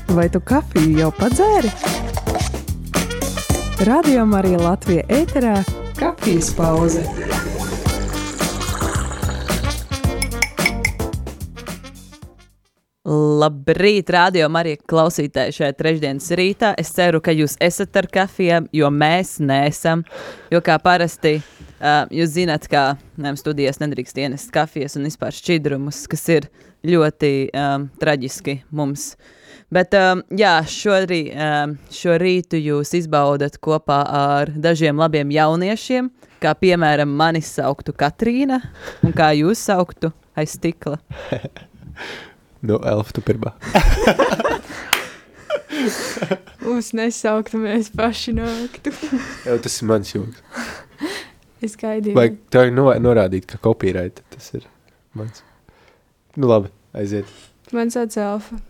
Vai tu kafiju jau padzēri? Radio Marija Latvija ēterā kafijas pauze. Labrīt, Radio Marija klausītāji šajā trešdienas rītā. Es ceru, ka jūs esat ar kafijām, jo mēs neesam. Jo kā parasti, jūs zināt, kā studijās nedrīkst ienest kafijas un vispār šķidrumus, kas ir ļoti traģiski mums. Bet jā, šo rītu jūs izbaudat kopā ar dažiem labiem jauniešiem, kā piemēram mani sauktu Katrīna, un kā jūs sauktu aiz stikla. Nu, Elf, tu pirmā. Mums nesauktu, mēs paši nāktu. Jā, tas ir mans joks. Es gaidīju. Vai tev norādīt, ka copyright tas ir mans? Nu labi, aiziet. Man sauc Elfa.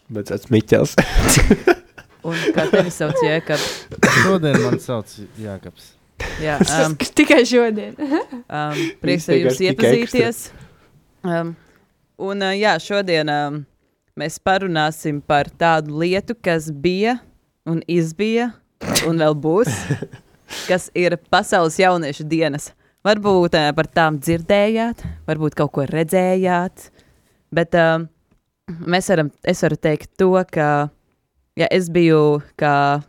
Bet tāds Miķels. Un kā tevi sauc Jēkabs? Šodien man sauc Jākabs. Jā, Tikai šodien. prieks ar jums iepazīties. Un jā, šodien mēs parunāsim par tādu lietu, kas bija un izbija un vēl būs, kas ir Pasaules jauniešu dienas. Varbūt par tām dzirdējāt, varbūt kaut ko redzējāt, bet es varu teikt to, ka ja es biju kā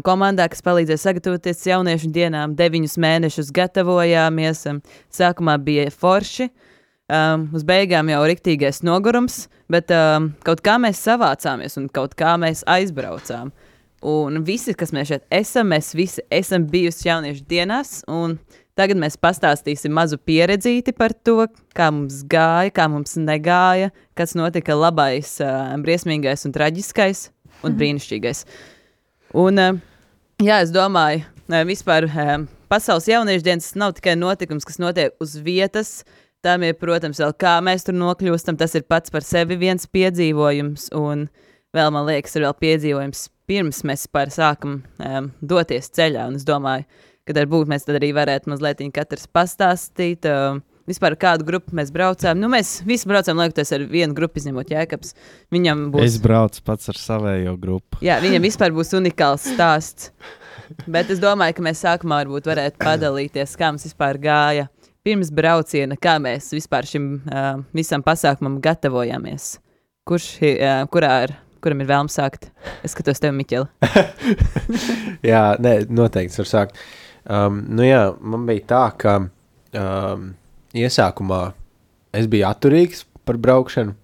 komandā, kas palīdzēja sagatavoties jauniešu dienām, 9 mēnešus gatavojāmies, sākumā bija forši, uz beigām jau riktīgais nogurums, bet kaut kā mēs savācāmies un kaut kā mēs aizbraucām. Un visi, kas mēs šeit esam, mēs visi esam bijusi jauniešu dienās, un tagad mēs pastāstīsim mazu pieredzīti par to, kā mums gāja, kā mums negāja, kas notika labais, briesmīgais un traģiskais un brīnišķīgais. Un jā, es domāju, vispār Pasaules jauniešu dienas nav tikai notikums, kas notiek uz vietas. Tam ir, protams, vēl kā mēs tur nokļūstam, tas ir pats par sevi viens piedzīvojums, un vēl, man liekas, ir vēl piedzīvojums pirms mēs par sākam doties ceļā, un es domāju, ka varbūt mēs tad arī varētu mazliet katrs pastāstīt, vispār kādu grupu mēs braucām. Nu, mēs visi braucām, liekoties ar vienu grupu, izņemot Jēkabs. Viņam būs... Es braucu pats ar savējo grupu. Jā, viņam vispār būs unikāls stāsts, bet es domāju, ka mēs sākumā varbūt varētu padalīties, kā mums vispār gāja pirms brauciena, kā mēs vispār šim visam pasākumam gatavojāmies. Kuram ir vēlme sākt? Es skatos tevi, Miķeli. Jā, nē, noteikti var sākt. Nu jā, man bija tā, ka iesākumā es biju atturīgs par braukšanu,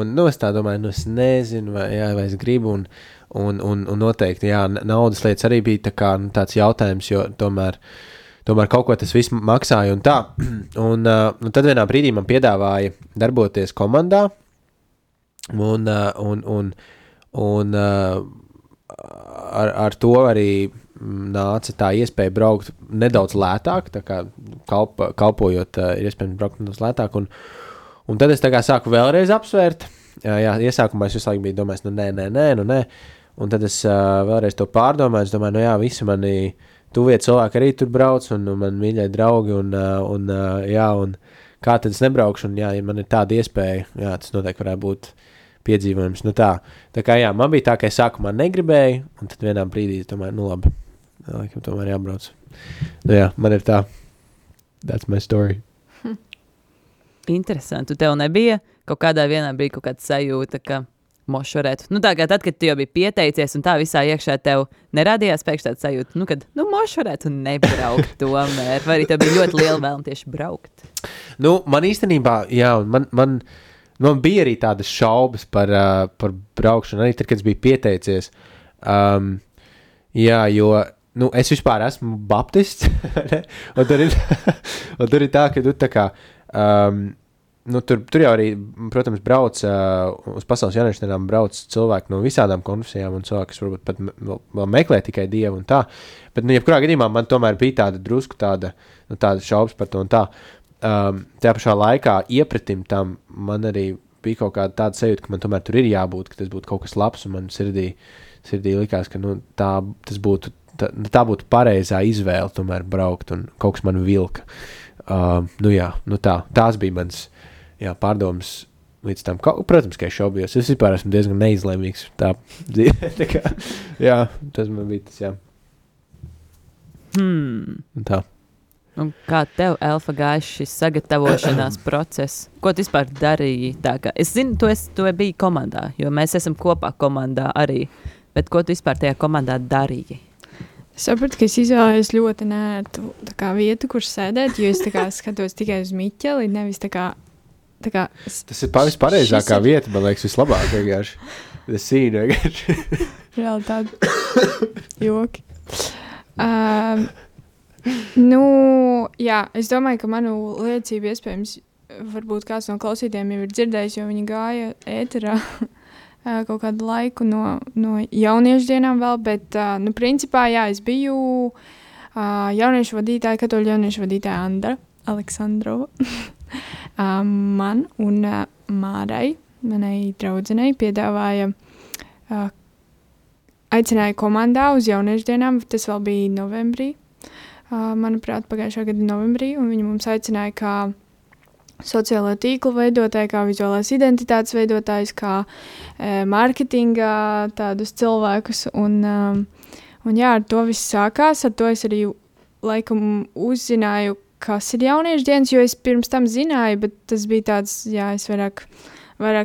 un es tā domāju, es nezinu, vai es gribu, un noteikti, jā, naudas lietas arī bija tā kā, tāds jautājums, jo tomēr kaut ko tas viss maksāja un tā. Un tad vienā brīdī man piedāvāja darboties komandā, un ar to arī nāca tā iespēja braukt nedaudz lētāk, tā kā kalpojot ir iespējams braukt nedaudz lētāk, un tad es tā kā sāku vēlreiz apsvērt. Jā, iesākumā es visu laiku biju domājis, nē, un tad es vēlreiz to pārdomāju, es domāju, jā, visi mani tuvie cilvēki arī tur brauc, un man mīļai draugi, un kā tad es nebraukšu, un jā, ja man ir tāda iespēja, jā, tas noteikti varētu būt piedzīvojums. Nu tā kā jā, man bija tā, ka es sākumā negribēju, un tad vienā brīdī es domāju, labi, laikam tomēr jābrauc. Nu jā, man ir tā, that's my story. Interesanti, tev nebija kaut kādā vienā brīdī kaut kāda sajūta, ka mošvarētu. Nu tā kā tad, kad tu jau biji pieteicies un tā visā iekšā tev neradījās pēkšņi tāda sajūta, kad mošvarētu nebraukt tomēr, vai arī tev bija ļoti liela vēlme tieši braukt? Nu, man īstenībā, jā, man bija arī tādas šaubas par braukšanu, arī tad, kad es biju pieteicies. Jā, jo, es vispār esmu baptists, un tur ir tā, ka tu tā kā, tur jau arī, protams, brauc uz Pasaules jauniešu dienām brauc cilvēki no visādām konfesijām un cilvēki, kas varbūt pat vēl meklē tikai Dievu un tā. Bet, jebkurā gadījumā man tomēr bija tāda drusku tāda šaubas par to un tā. Tajā pašā laikā iepratim tam man arī bija kaut kāda tāda sajūta, ka man tomēr tur ir jābūt, ka tas būtu kaut kas labs, un man sirdī likās, ka tā būtu pareizā izvēle tomēr braukt, un kaut kas man vilka. Tās bija mans pārdomas līdz tam, protams, ka es šaubījos. Es vispār esmu diezgan neizlēmīgs tā dzīvē. Tā kā, jā, tas man bija tas, jā. Un tā. Un kā tev, Elfa, gāja šis sagatavošanās process? Ko tu vispār darīji? Tā kā, es zinu, tu biji komandā, jo mēs esam kopā komandā arī. Bet ko tu vispār tajā komandā darīji? Es sapratu, ka es izvēlējos ļoti nērtu vietu, kur sēdēt, jo es skatos tikai uz Miķeli, nevis tā kā Tas ir pareizākā vieta, man liekas, vislabāk vienkārši. Tas sīna vienkārši. Reāli tādi joki. Jā, es domāju, ka manu liecību iespējams, varbūt kāds no klausītājiem jau ir dzirdējis, jo viņi gāja ēterā kaut kādu laiku no jauniešu dienām vēl, bet, principā, jā, es biju jauniešu vadītāja, katoļu jauniešu vadītāja Andra Aleksandrova. Man un Mārai, manai draudzenei, piedāvāja, aicināja komandā uz jauniešu dienām, tas vēl bija novembrī, manuprāt, pagājušā gada novembrī, un viņi mums aicināja kā sociālo tīklu veidotāji, kā vizuālās identitātes veidotājs, kā mārketinga tādus cilvēkus, un jā, ar to viss sākās, ar to es arī laikam uzzināju, kas ir jauniešu dienas, jo es pirms tam zināju, bet tas bija tāds, jā, es vairāk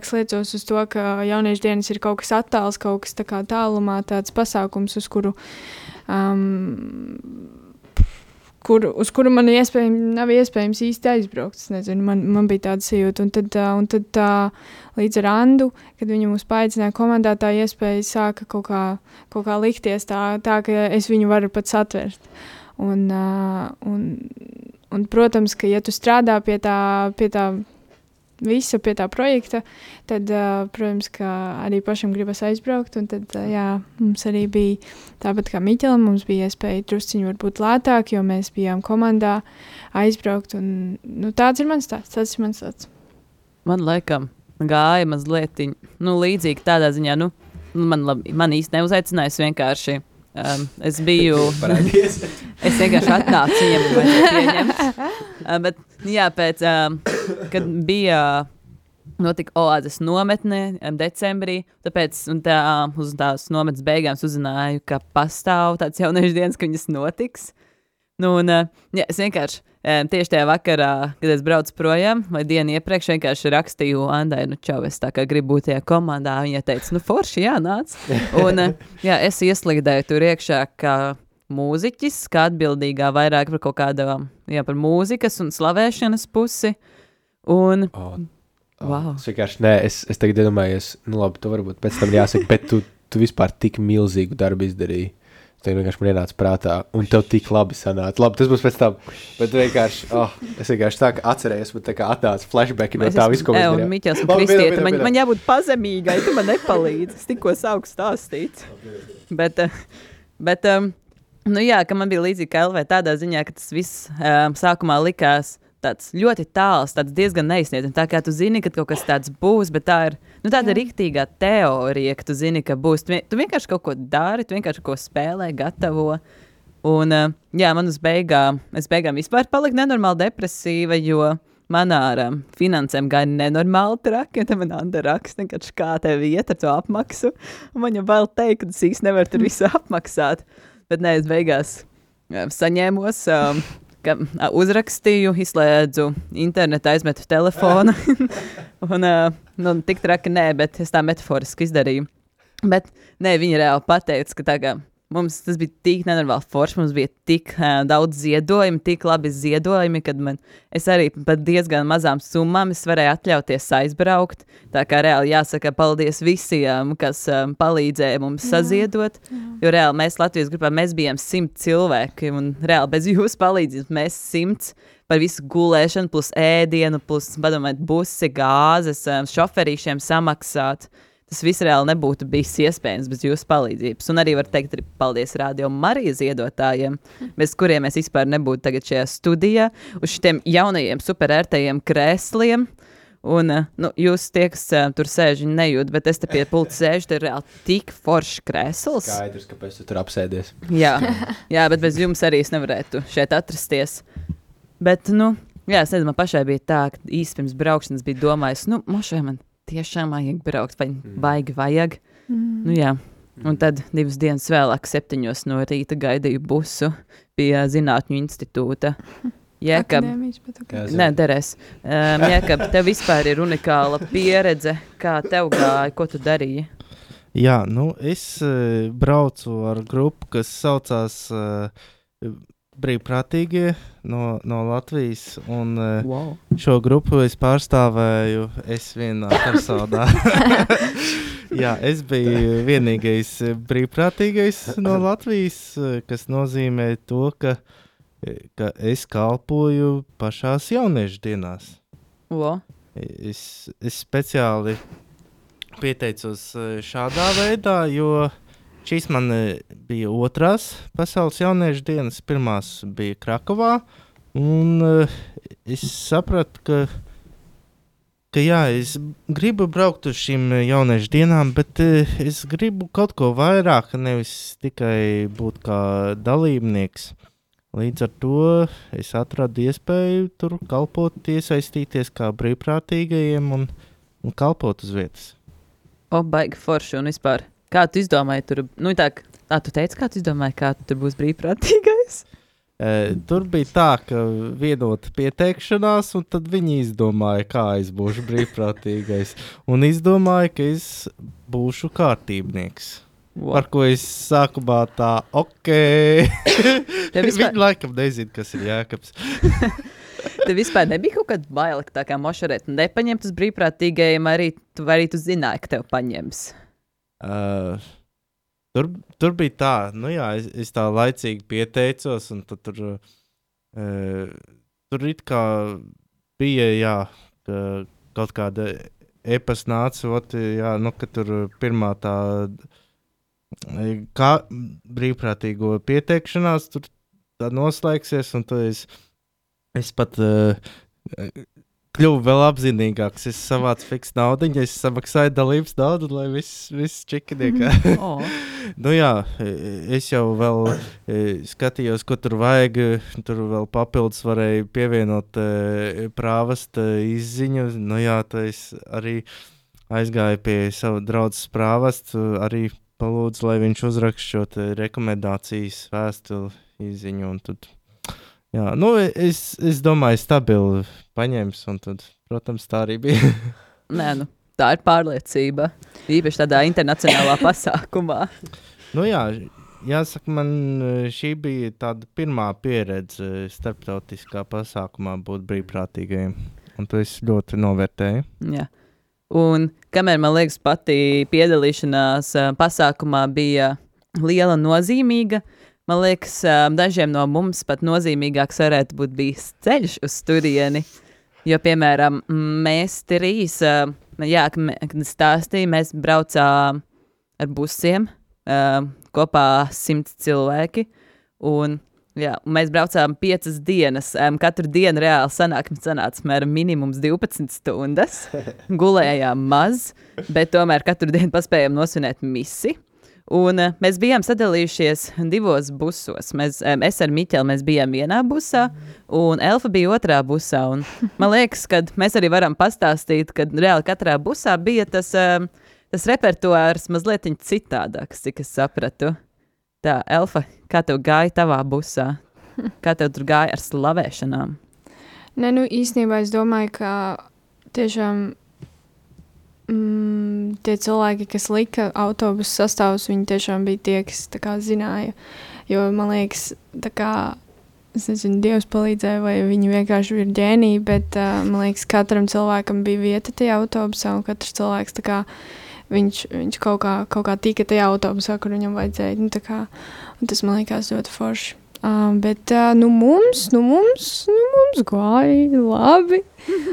sliecos uz to, ka jauniešu dienas ir kaut kas attāls, kaut kas tā kā tālumā, tāds pasākums, uz kuru man nav iespējams īsti aizbraukt. Es nezinu, man bija tāda sajūta. Un tad līdz ar Andu, kad viņi mūs paaicināja komandā, tā iespēja sāka kaut kā likties tā, ka es viņu varu pat satvert. Un protams, ka ja tu strādā pie tā visa, pie tā projekta, tad, protams, ka arī pašam gribas aizbraukt, un tad, jā, mums arī bija tāpat kā Miķelam, mums bija iespēja drusciņu varbūt lētāk, jo mēs bijām komandā aizbraukt, un, tāds ir mans stāsts. Man laikam gāja mazliet, līdzīgi tādā ziņā, man īsti neuzaicinājis vienkārši. Es biju, es vienkārši atnācu viņam un vajadzēja pieņemt. Bet, jā, kad bija notika Oāzes nometne decembrī, tāpēc uz tās nometnes beigām uzzināju, ka pastāv tāds jauniešu dienas, ka viņas notiks. Jā, es vienkārši tieši tajā vakarā, kad es braucu projām, vai dienu iepriekš vienkārši rakstīju Andai, čau, es tā kā gribu būt tajā komandā. Viņa teica, forši, jā, nāc. Un, jā, es ieslīdēju tur iekšā kā mūziķis, kā atbildīgā vairāk par kaut kādā, jā, par mūzikas un slavēšanas pusi. Un, wow. Es vienkārši, es tagad iedomājos, labi, tu varbūt pēc tam jāsaka, bet tu vispār tik milzīgu darbu izdarīji. Tas vienkārši man ienāca prātā, un tev tik labi sanāca. Labi, tas būs pēc tam, bet vienkārši, es vienkārši tā kā atcerējos, bet tā kā atnāca flashbacki no tā visu, ko mēs darījām. Miķels un Kristieta, man jābūt pazemīgai, tu man nepalīdzi, es tikko sāku stāstīt. Bet, jā, ka man bija līdzīgi kā Elvē tādā ziņā, ka tas viss sākumā likās tāds ļoti tāls, tāds diezgan neizsniedzams. Tā kā tu zini, ka kaut kas tāds būs, bet tā ir tāda riktīgā teorija, ka tu zini, ka būs. Tu vienkārši kaut ko dari, tu vienkārši kaut ko spēlē, gatavo. Un, jā, man es beigām vispār paliku nenormāli depresīva, jo man ar finansēm gāja nenormāli traki, un tad man Anda raksta, kā tev iet ar to apmaksu. Un man jau vēl teikt, ka es īsti nevaru tur visu apmaksāt. Bet nē, es beigās saņēmos... uzrakstīju, izslēdzu internetu, aizmetu telefonu. Un tik traki nē, bet es tā metaforiski izdarīju. Bet nē, viņi reāli pateica, ka tā kā mums tas bija tik nenormāli forši, mums bija tik daudz ziedojumi, tik labi ziedojumi, kad es arī pat diezgan mazām summām es varēju atļauties aizbraukt. Tā kā reāli jāsaka paldies visiem, kas palīdzēja mums saziedot, jo reāli mēs Latvijas grupā, mēs bijām 100 cilvēki, un reāli bez jūsu palīdzības mēs 100 par visu gulēšanu, plus ēdienu, plus, padomājiet, busi, gāzes, šoferīšiem samaksāt. Tas viss reāli nebūtu bijis iespējams bez jūsu palīdzības. Un arī var teikt arī paldies Radio Marija ziedotājiem, bez kuriem mēs vispār nebūtu tagad šajā studijā, uz šitiem jaunajiem superērtajiem krēsliem. Un jūs tie, kas tur sēž, nejūt, bet es te pie pulta sēžu, te ir reāli tik foršs krēsls. Skaidrs, kāpēc tu tur apsēdies. Jā, bet bez jums arī es nevarētu šeit atrasties. Bet, jā, es nezinu, man pašai bija tā, ka īsti pirms braukšanas bija domājis, mošai man tiešām vajag braukt, vai baigi vajag. Nu jā, un tad 2 dienas vēlāk 7 no rīta gaidīju busu pie Zinātņu institūta. Jēkab, Akadēmijas, bet ok. nē, derēs. Jēkab, tev vispār ir unikāla pieredze, kā tev gāja, ko tu darīji? Jā, nu, es braucu ar grupu, kas saucās Brīvprātīgie no Latvijas, un šo grupu es pārstāvēju vienā personā. Jā, es biju vienīgais brīvprātīgais no Latvijas, kas nozīmē to, ka es kalpoju pašās jauniešu dienās. Es speciāli pieteicos šādā veidā, jo šīs man bija 2. pasaules jauniešu dienas, pirmās bija Krakovā, un es sapratu, ka jā, es gribu braukt uz šīm jauniešu dienām, bet es gribu kaut ko vairāk, nevis tikai būt kā dalībnieks. Līdz ar to es atradu iespēju tur kalpot, iesaistīties kā brīvprātīgajiem un kalpot uz vietas. Baigi forši un vispār. Kā tu izdomāji tur? Nu tā, tu teici, kā tu izdomāji, kā tu tur būs brīvprātīgais? Tur bija tā, ka vienota pieteikšanās, un tad viņi izdomāja, kā es būšu brīvprātīgais. Un izdomāja, ka es būšu kārtībnieks. Par ko es sākumā tā, Viņi laikam nezina, kas ir Jēkabs. Tev vispār nebija kaut kāda baila, ka tā kā mošarēt nepaņemt uz brīvprātīgajiem, arī tu zināji, ka tev paņems? Tur bija tā, nu jā, es tā laicīgi pieteicos, un tad tur it kā bija, jā, ka kaut kāda e-pasta nāca, jā, nu, ka tur pirmā tā kā brīvprātīgo pieteikšanās tur tā noslēgsies, un tad es pat kļuvu vēl apzinīgāks. Es savācu fiksu naudiņu, es samaksāju dalības naudu, lai viss čikiniekā. Nu jā, es jau vēl skatījos, ko tur vajag. Tur vēl papildus varēju pievienot prāvasta izziņu. Nu jā, tad es arī aizgāju pie sava draudzes prāvastu, arī palūdzu, lai viņš uzrakst šo rekomendācijas vēstuli izziņu. Un tad, jā, nu, es domāju, stabili paņems, un tad, protams, tā arī bija. Nē, nu, tā ir pārliecība. Īpaši tādā internacionālā pasākumā. Nu jā, jāsaka, man šī bija tāda pirmā pieredze starptautiskā pasākumā būt brīvprātīgajiem. Un to es ļoti novērtēju. Jā. Un kamēr, man liekas, pati piedalīšanās pasākumā bija liela nozīmīga, man liekas, dažiem no mums pat nozīmīgāks varētu būt bijis ceļš uz turieni. Jo, piemēram, mēs 3, kad stāstīja, mēs braucām ar busiem, kopā 100 cilvēki, un mēs braucām 5 dienas. Katru dienu reāli sanāca mēram minimums 12 stundas. Gulējām maz, bet tomēr katru dienu paspējām nosvinēt misi. Un mēs bijām sadalījušies 2 busos. Es ar Miķeli mēs bijām vienā busā, un Elfa bija otrā busā. Un man liekas, ka mēs arī varam pastāstīt, ka reāli katrā busā bija tas repertuārs mazliet citādāks, cik es sapratu. Tā, Elfa, kā tev gāja tavā busā? Kā tev tur gāja ar slavēšanām? Nē, nu īstenībā es domāju, ka tiešām tie cilvēki, kas lika autobusu sastāvus, viņi tiešām bija tie, kas tā kā zināja. Jo, man liekas, tā kā, es nezinu, Dievs palīdzēja, vai viņi vienkārši ir ģēniji, bet man liekas, katram cilvēkam bija vieta tajā autobusā, un katrs cilvēks tā kā viņš kaut kā tika tajā autobusā, kur viņam vajadzēja. Nu, tā kā, un tas man liekas ļoti forši. Bet mums gāja labi.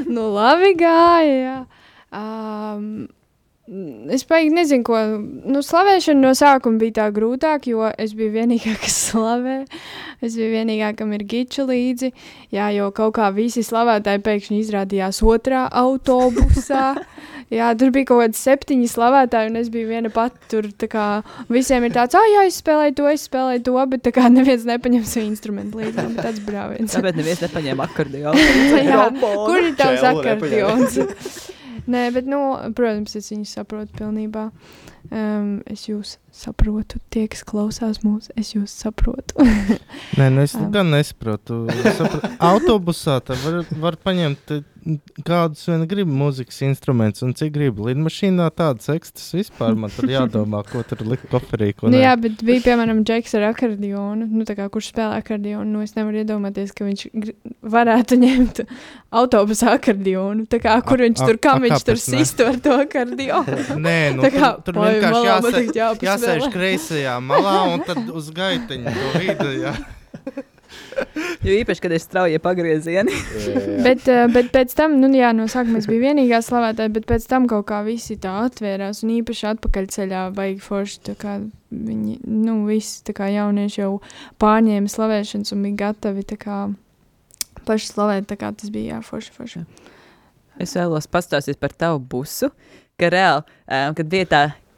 Nu, labi gāja, jā. Es paigi nezinu, ko. Nu, slavēšana no sākuma bija tā grūtāk, jo es biju vienīgā, kas slavē. Es biju vienīgā, kam ir giča līdzi. Jā, jo kaut kā visi slavētāji pēkšņi izrādījās otrā autobusā. Jā, tur bija kaut kādi 7 slavētāji, un es biju viena pati tur, tā kā visiem ir tāds, jā, es spēlēju to, bet tā kā neviens nepaņem savu instrumentu līdzi, bet tāds brāviens. Tāpēc neviens nepaņēma akordionu. Jā, kur ir tavs akordions? Nē, bet, protams, es viņus saprotu pilnībā. Es jūs saprotu, tie, kas klausās mūs, es jūs saprotu. Nē, es gan nesaprotu. Autobusā var paņemt kādus vien grib mūzikas instruments un cik grib. Lidmašīnā tādas ekstas vispār man tur jādomā, ko tur likt koferī, ko jā, bet bija, piemēram, Džeks ar akordionu, kurš spēlē akordionu, es nevaru iedomāties, ka viņš varētu ņemt autobusa akordionu, kur viņš tur, kā viņš tur sistu ar to akordionu. Nē, tur vienkārši jāsēž kreisajā malā un tad uz gaiteņu to vidu, jā. Jo īpaši, kad ir straujie pagriezieni. bet pēc tam, no sākuma es biju vienīgā slavētāja, bet pēc tam kaut kā visi tā atvērās un īpaši atpakaļceļā baigi forši, tā kā viņi, visi tā kā jaunieši jau pārņēma slavēšanas un bija gatavi tā kā paši slavēt, tā kā tas bija, forši. Es vēlos pastāstīt par tavu busu, ka reāli, kad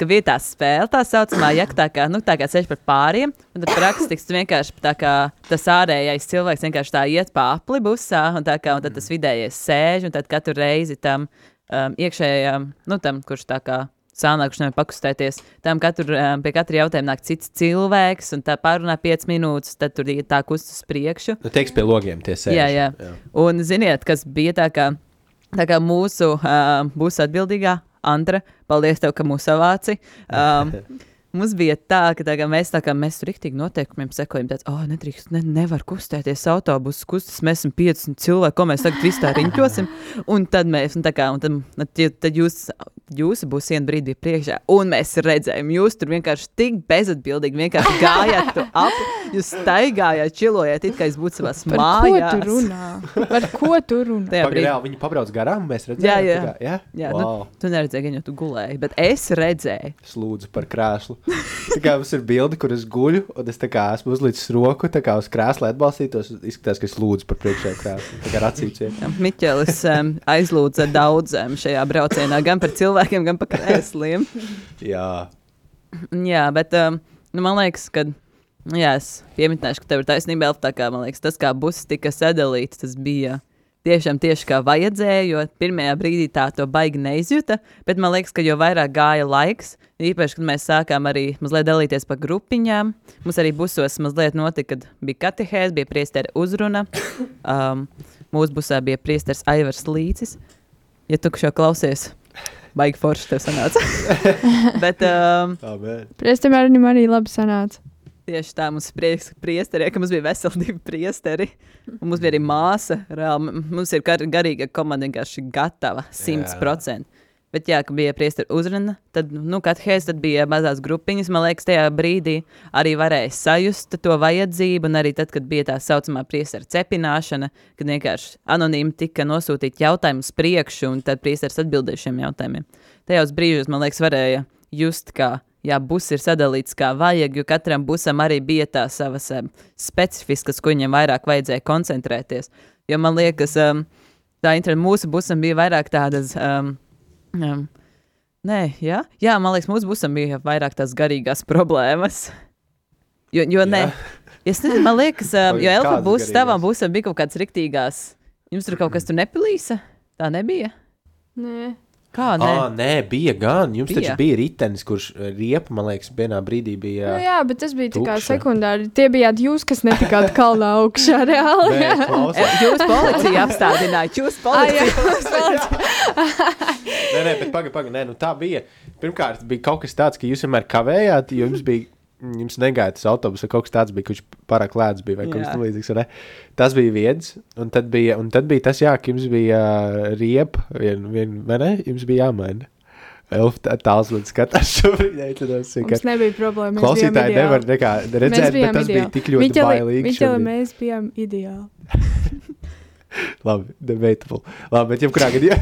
vietā spēle tā saucamā, tā kā ceļš par pāriem, un tad praktiski vienkārši tā kā tas ārējais cilvēks vienkārši tā iet pa apli busā, un tad tas vidējais sēž, un tad katru reizi tam iekšējām, tam, kurš tā kā sānā, kurš nevar pakustēties, tam pie katra jautājuma nāk cits cilvēks, un tā pārunā 5 minūtes, tad tur tā kustas priekšu. Teiks pie logiem tie sēž. Jā. Un ziniet, kas bija tā kā mūsu busa atbildīgā, Andra, paldies tev, ka mūs savāci. Mums bija tā, ka mēs tur riktīgi noteikumiem sekojam, nedrīkst, nevar kustēties autobusus, kustas, mēs esam 50 cilvēki, ko mēs tagad visu tā riņķosim, un tad tad jūsu būs vienu brīdi bija priekšā, un mēs redzējām, jūs tur vienkārši tik bezatbildīgi vienkārši gājāt tu ap, jūs staigājāt, čilojāt, it kā es būtu savās mājās. Par ko tu runā? Reāli, viņi pabrauc garām, mēs redzējām. Jā, wow. Tu neredzēji, gan jau tu gulēji, bet es redzēju. Es lūdzu par krēslu. Tā kā mums ir bildi, kur es guļu, un es tā kā esmu uzlicis roku, tā kā uz krēsla atbalstītos, izskatās, ka es lūdzu par priekšēju krēslu, tā kā racīcien. Miķelis aizlūdza daudziem šajā braucienā, gan par cilvēkiem, gan par krēsliem. Jā, bet man liekas, ka, es piemitināšu, ka tev ir taisnība, tā kā, man liekas, tas, kā buss tika sadalīts, tas bija tieši kā vajadzēja, jo pirmajā brīdī tā to baigi neizjuta, bet man liekas, ka jo vairāk gāja laiks, īpaši, kad mēs sākām arī mazliet dalīties pa grupiņām, mums arī busos mazliet notika, kad bija katehēs, bija priesteri uzruna, mūsu busā bija priesteris Aivars Līcis, ja tu šo klausies, baigi forši tev sanāca. Bet priesterim arī labi sanāca. Tieši tā, mums priesteri, ka mums bija veseli 2 priesteri, un mums bija arī māsa, reāli, mums ir garīga komanda vienkārši gatava 100%. Bet jā, ka bija priesteri uzruna, tad, katehēs, tad bija mazās grupiņas, man liekas, tajā brīdī arī varēja sajust to vajadzību, un arī tad, kad bija tā saucamā priestera cepināšana, kad vienkārši anonīmi tika nosūtīt jautājumus priekšu, un tad priesteris atbildēja šiem jautājumiem. Tajos brīžos, man liekas, varēja just, kā buss ir sadalīts kā vajag, jo katram busam arī bija tā savas specifiskas, ko viņam vairāk vajadzēja koncentrēties. Jo man liekas, mūsu busam bija vairāk tādas, man liekas, mūsu busam bija vairāk tās garīgās problēmas. Jo man liekas, jo Elfa buss, tavam busam bija kaut kāds riktīgās, jums tur kaut kas tur nepilīsa? Tā nebija? Nē. Kā, nē? Nē, bija gan. Jums taču bija ritenis, kurš riepa, man liekas, vienā brīdī bija jā, bet tas bija tā kā sekundāri. Tie bijāt jūs, kas netikāt kalnā augšā reāli. Jūs policija apstādinājāt. Jūs policija. Nē, bet pagaid. Nē, tā bija. Pirmkārt, bija kaut kas tāds, ka jūs vienmēr kavējāt, jo jums negaida tas autobus, vai kaut kas tāds bija, kurš pārāk lēts bija, vai kaut kas līdzīgs, vai ne? Tas bija viens, un tad bija tas, ka jums bija riepa, vai ne? Jums bija jāmaina. Elfa tāls man skatās šobrīd. Mums nebija problēma, mēs klausītāji bijām nevar nekā redzēt, bet tas bija tik ļoti bailīgi. Miķeli, mēs bijām ideāli. Labi, debatable. Labi, bet jebkurā gadījumā.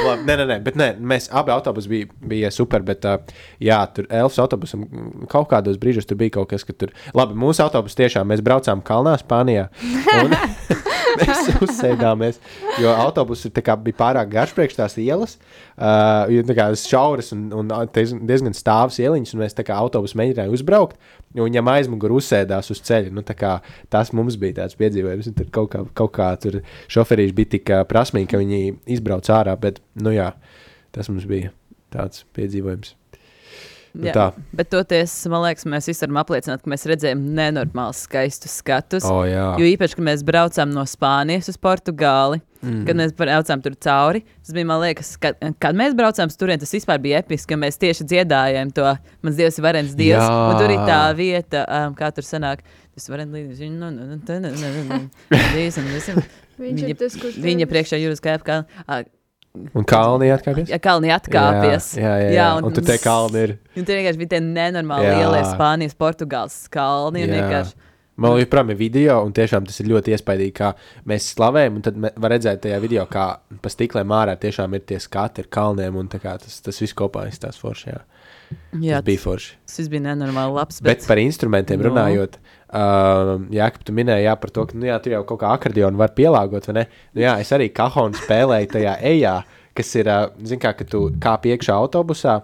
Labi. Nē, mēs abi autobusi bija super, bet tur Elfas autobusam kaut kādos brīžos tur bija kaut kas, ka tur. Labi, mūsu autobus tiešām mēs braucām kalnā Spānijā. Un mēs uzsēdāmies jo autobus bija pārāk garš priekš tās ielas, jo tā kā šauras un diezgan stāvas ieliņas, un mēs tā kā autobus mēģinājām uzbraukt, un viņam aizmugur uzsēdās uz ceļa. Nu, tā kā tas mums bija tāds piedzīvojums, un tad kaut kā tur šoferīši bija tik prasmīgi, ka viņi izbrauc ārā, bet, nu jā, tas mums bija tāds piedzīvojums. Jā, bet toties, man liekas, mēs visi varam apliecināt, ka mēs redzējām nenormāli skaistus skatus. Jo īpaši, kad mēs braucām no Spānijas uz Portugāli, kad mēs braucām tur cauri, tas bija, man liekas, kad mēs braucām turien, tas vispār bija episki, ka mēs tieši dziedājām to Mans Dievs ir varens Dievs, un tur ir tā vieta, kā tur sanāk, tas varens līdz, viņa priekšā jūras kāp, un kalni atkāpies? Jā, kalni atkāpies. Jā. Un tur tie kalni ir. Un tur vienkārši bija tie nenormāli lielie Spānijas, Portugāles kalni. Man joprojām ir video, un tiešām tas ir ļoti iespaidīgi, kā mēs slavējam, un tad var redzēt tajā video, kā pa stiklēm ārā tiešām ir tie skati ar kalniem, un tā kā tas viss kopā izstās forši, tas bija forši. Tas bija nenormāli labs. Bet par instrumentiem runājot, Jākap, tu minēji par to, ka tu jau kaut kā akordionu var pielāgot, vai ne? Nu jā, es arī kahonu spēlēju tajā ejā, kas ir, zin kā, ka tu kāp iekšā autobusā,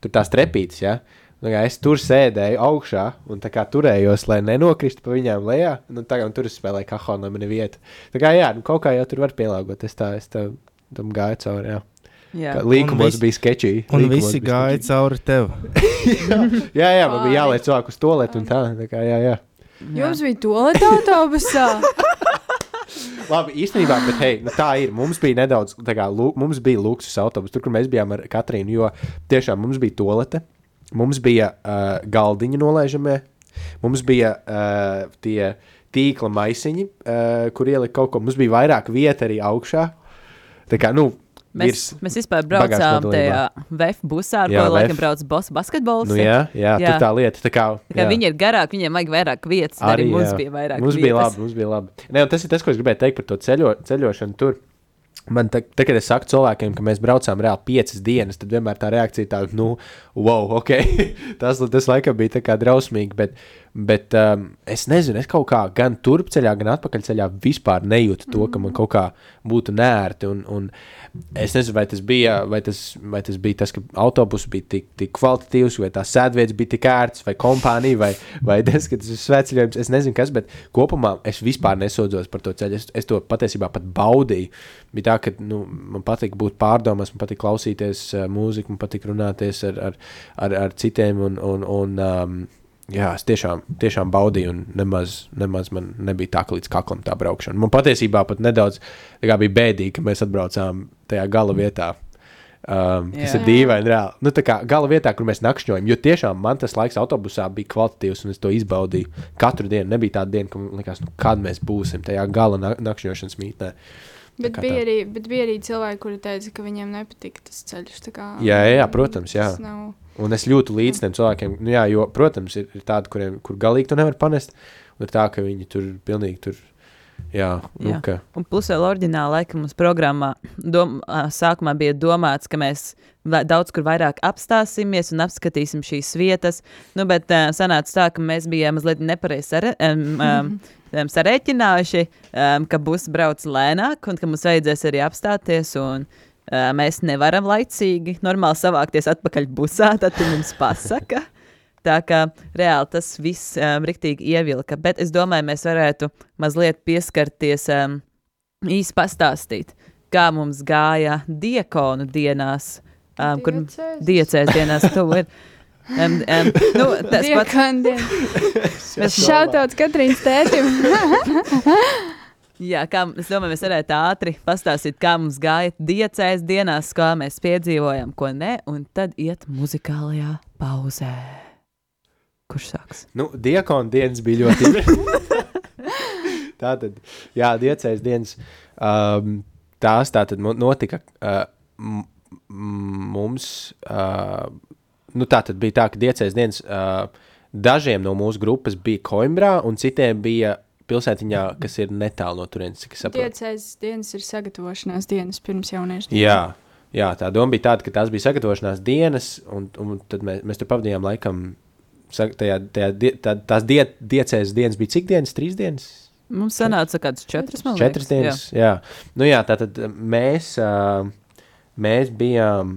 tur tās trepītes, ja? Nu, es tur sēdēju augšā un tā kā turējos, lai nenokristu pa viņām lejā, un tur es spēlēju kahonu, lai man ir vieta. Tā kā kaut kā jau tur var pielāgot, es tam gāju cauri, Līkumos bija sketčī. Un visi gāja cauri tev. jā, man bija jāliec cilvēku uz toaletu un tā kā jā. Jums bija toaleta autobusā? Labi, īstenībā, bet hei, tā ir. Mums bija nedaudz, mums bija luksus autobus, tur, kur mēs bijām ar Katrīnu, jo tiešām mums bija toalete, mums bija galdiņi nolaižamie, mums bija tie tīkla maisiņi, kur ielika kaut ko, mums bija vairāk vieta arī augšā. Tā kā, Mēs vispār braucām tajā VF busā, ar ko laikam brauc basketbols. Nu jā, tur tā lieta. Tā kā viņi ir garāki, viņiem vajag vairāk vietas, arī mums bija vairāk vietas. Mums bija labi. Ne, un tas ir tas, ko es gribēju teikt par to ceļošanu tur. Man kad es saku cilvēkiem, ka mēs braucām reāli 5 dienas, tad vienmēr tā reakcija tāda, wow, ok, tas laikam bija tā kā drausmīgi, bet es nezinu, es kaut kā gan turpceļā, gan atpakaļceļā vispār nejūtu to, ka man kaut kā būtu nērti, un es nezinu, vai tas bija tas, ka autobus bija tik kvalitatīvs, vai tā sēdvietas bija tik ērts, vai kompānija, vai tas, ka tas ir svētceļojums, es nezinu kas, bet kopumā es vispār nesodzos par to ceļu, es to patiesībā pat baudīju. Bija tā, ka man patīk būt pārdomās, man patīk klausīties mūziku, man patīk runāties ar citiem, un es tiešām baudīju, un nemaz man nebija tā, ka līdz kaklam tā braukšana. Man patiesībā pat nedaudz bija bēdīgi, ka mēs atbraucām tajā gala vietā, kas ir dīvaini reāli. Nu, tā kā gala vietā, kur mēs nakšņojam, jo tiešām man tas laiks autobusā bija kvalitatīvs, un es to izbaudīju katru dienu. Nebija tāda diena, ka man likās, kad mēs būsim tajā gala nakšņošanas mītnē. Bet bija arī cilvēki, kuri teica, ka viņiem nepatika tas ceļš. Jā, protams, jā. Un es jūtu līdz tiem cilvēkiem, jo, protams, ir tādi, kur galīgi tu nevar panest, un ir tā, ka viņi tur pilnīgi tur, ka... Un plus vēl oriģināli, laikam, mums programmā sākumā bija domāts, ka mēs daudz kur vairāk apstāsimies un apskatīsim šīs vietas, bet sanāca tā, ka mēs bijām mazliet nepareizi sarēķinājuši, ka bus brauc lēnāk un ka mums vajadzēs arī apstāties, un mēs nevaram laicīgi normāli savākties atpakaļ busā, tad tu mums pasaka. Tā kā reāli tas viss riktīgi ievilka, bet es domāju, mēs varētu mazliet pieskarties, īsti pastāstīt, kā mums gāja diekonu dienās, kur diecēs dienās tu ir. Tas pats. Šautauts Katrīnas tētim. Jā, es domāju, mēs varētu ātri pastāstīt, kā mums gāja diecēs dienās, kā mēs piedzīvojam, ko ne, un tad iet muzikālajā pauzē. Kurš sāks? Diekonu dienas bija ļoti Tātad, diecēs dienas, tās tātad notika mums, tātad bija tā, ka diecēs dienas dažiem no mūsu grupas bija Koimbrā, un citiem bija pilsētiņā, kas ir netālu no turienes, cik es saprotu. Diecēs dienas ir sagatavošanās dienas pirms jauniešu dienas. Jā, tā doma bija tāda, ka tās bija sagatavošanās dienas, un tad mēs tur pavadījām laikam, tās diecēs dienas bija cik dienas? 3 dienas? Mums sanāca kāds 4, man liekas. 4 dienas, jā. Nu jā, tātad mēs bijām,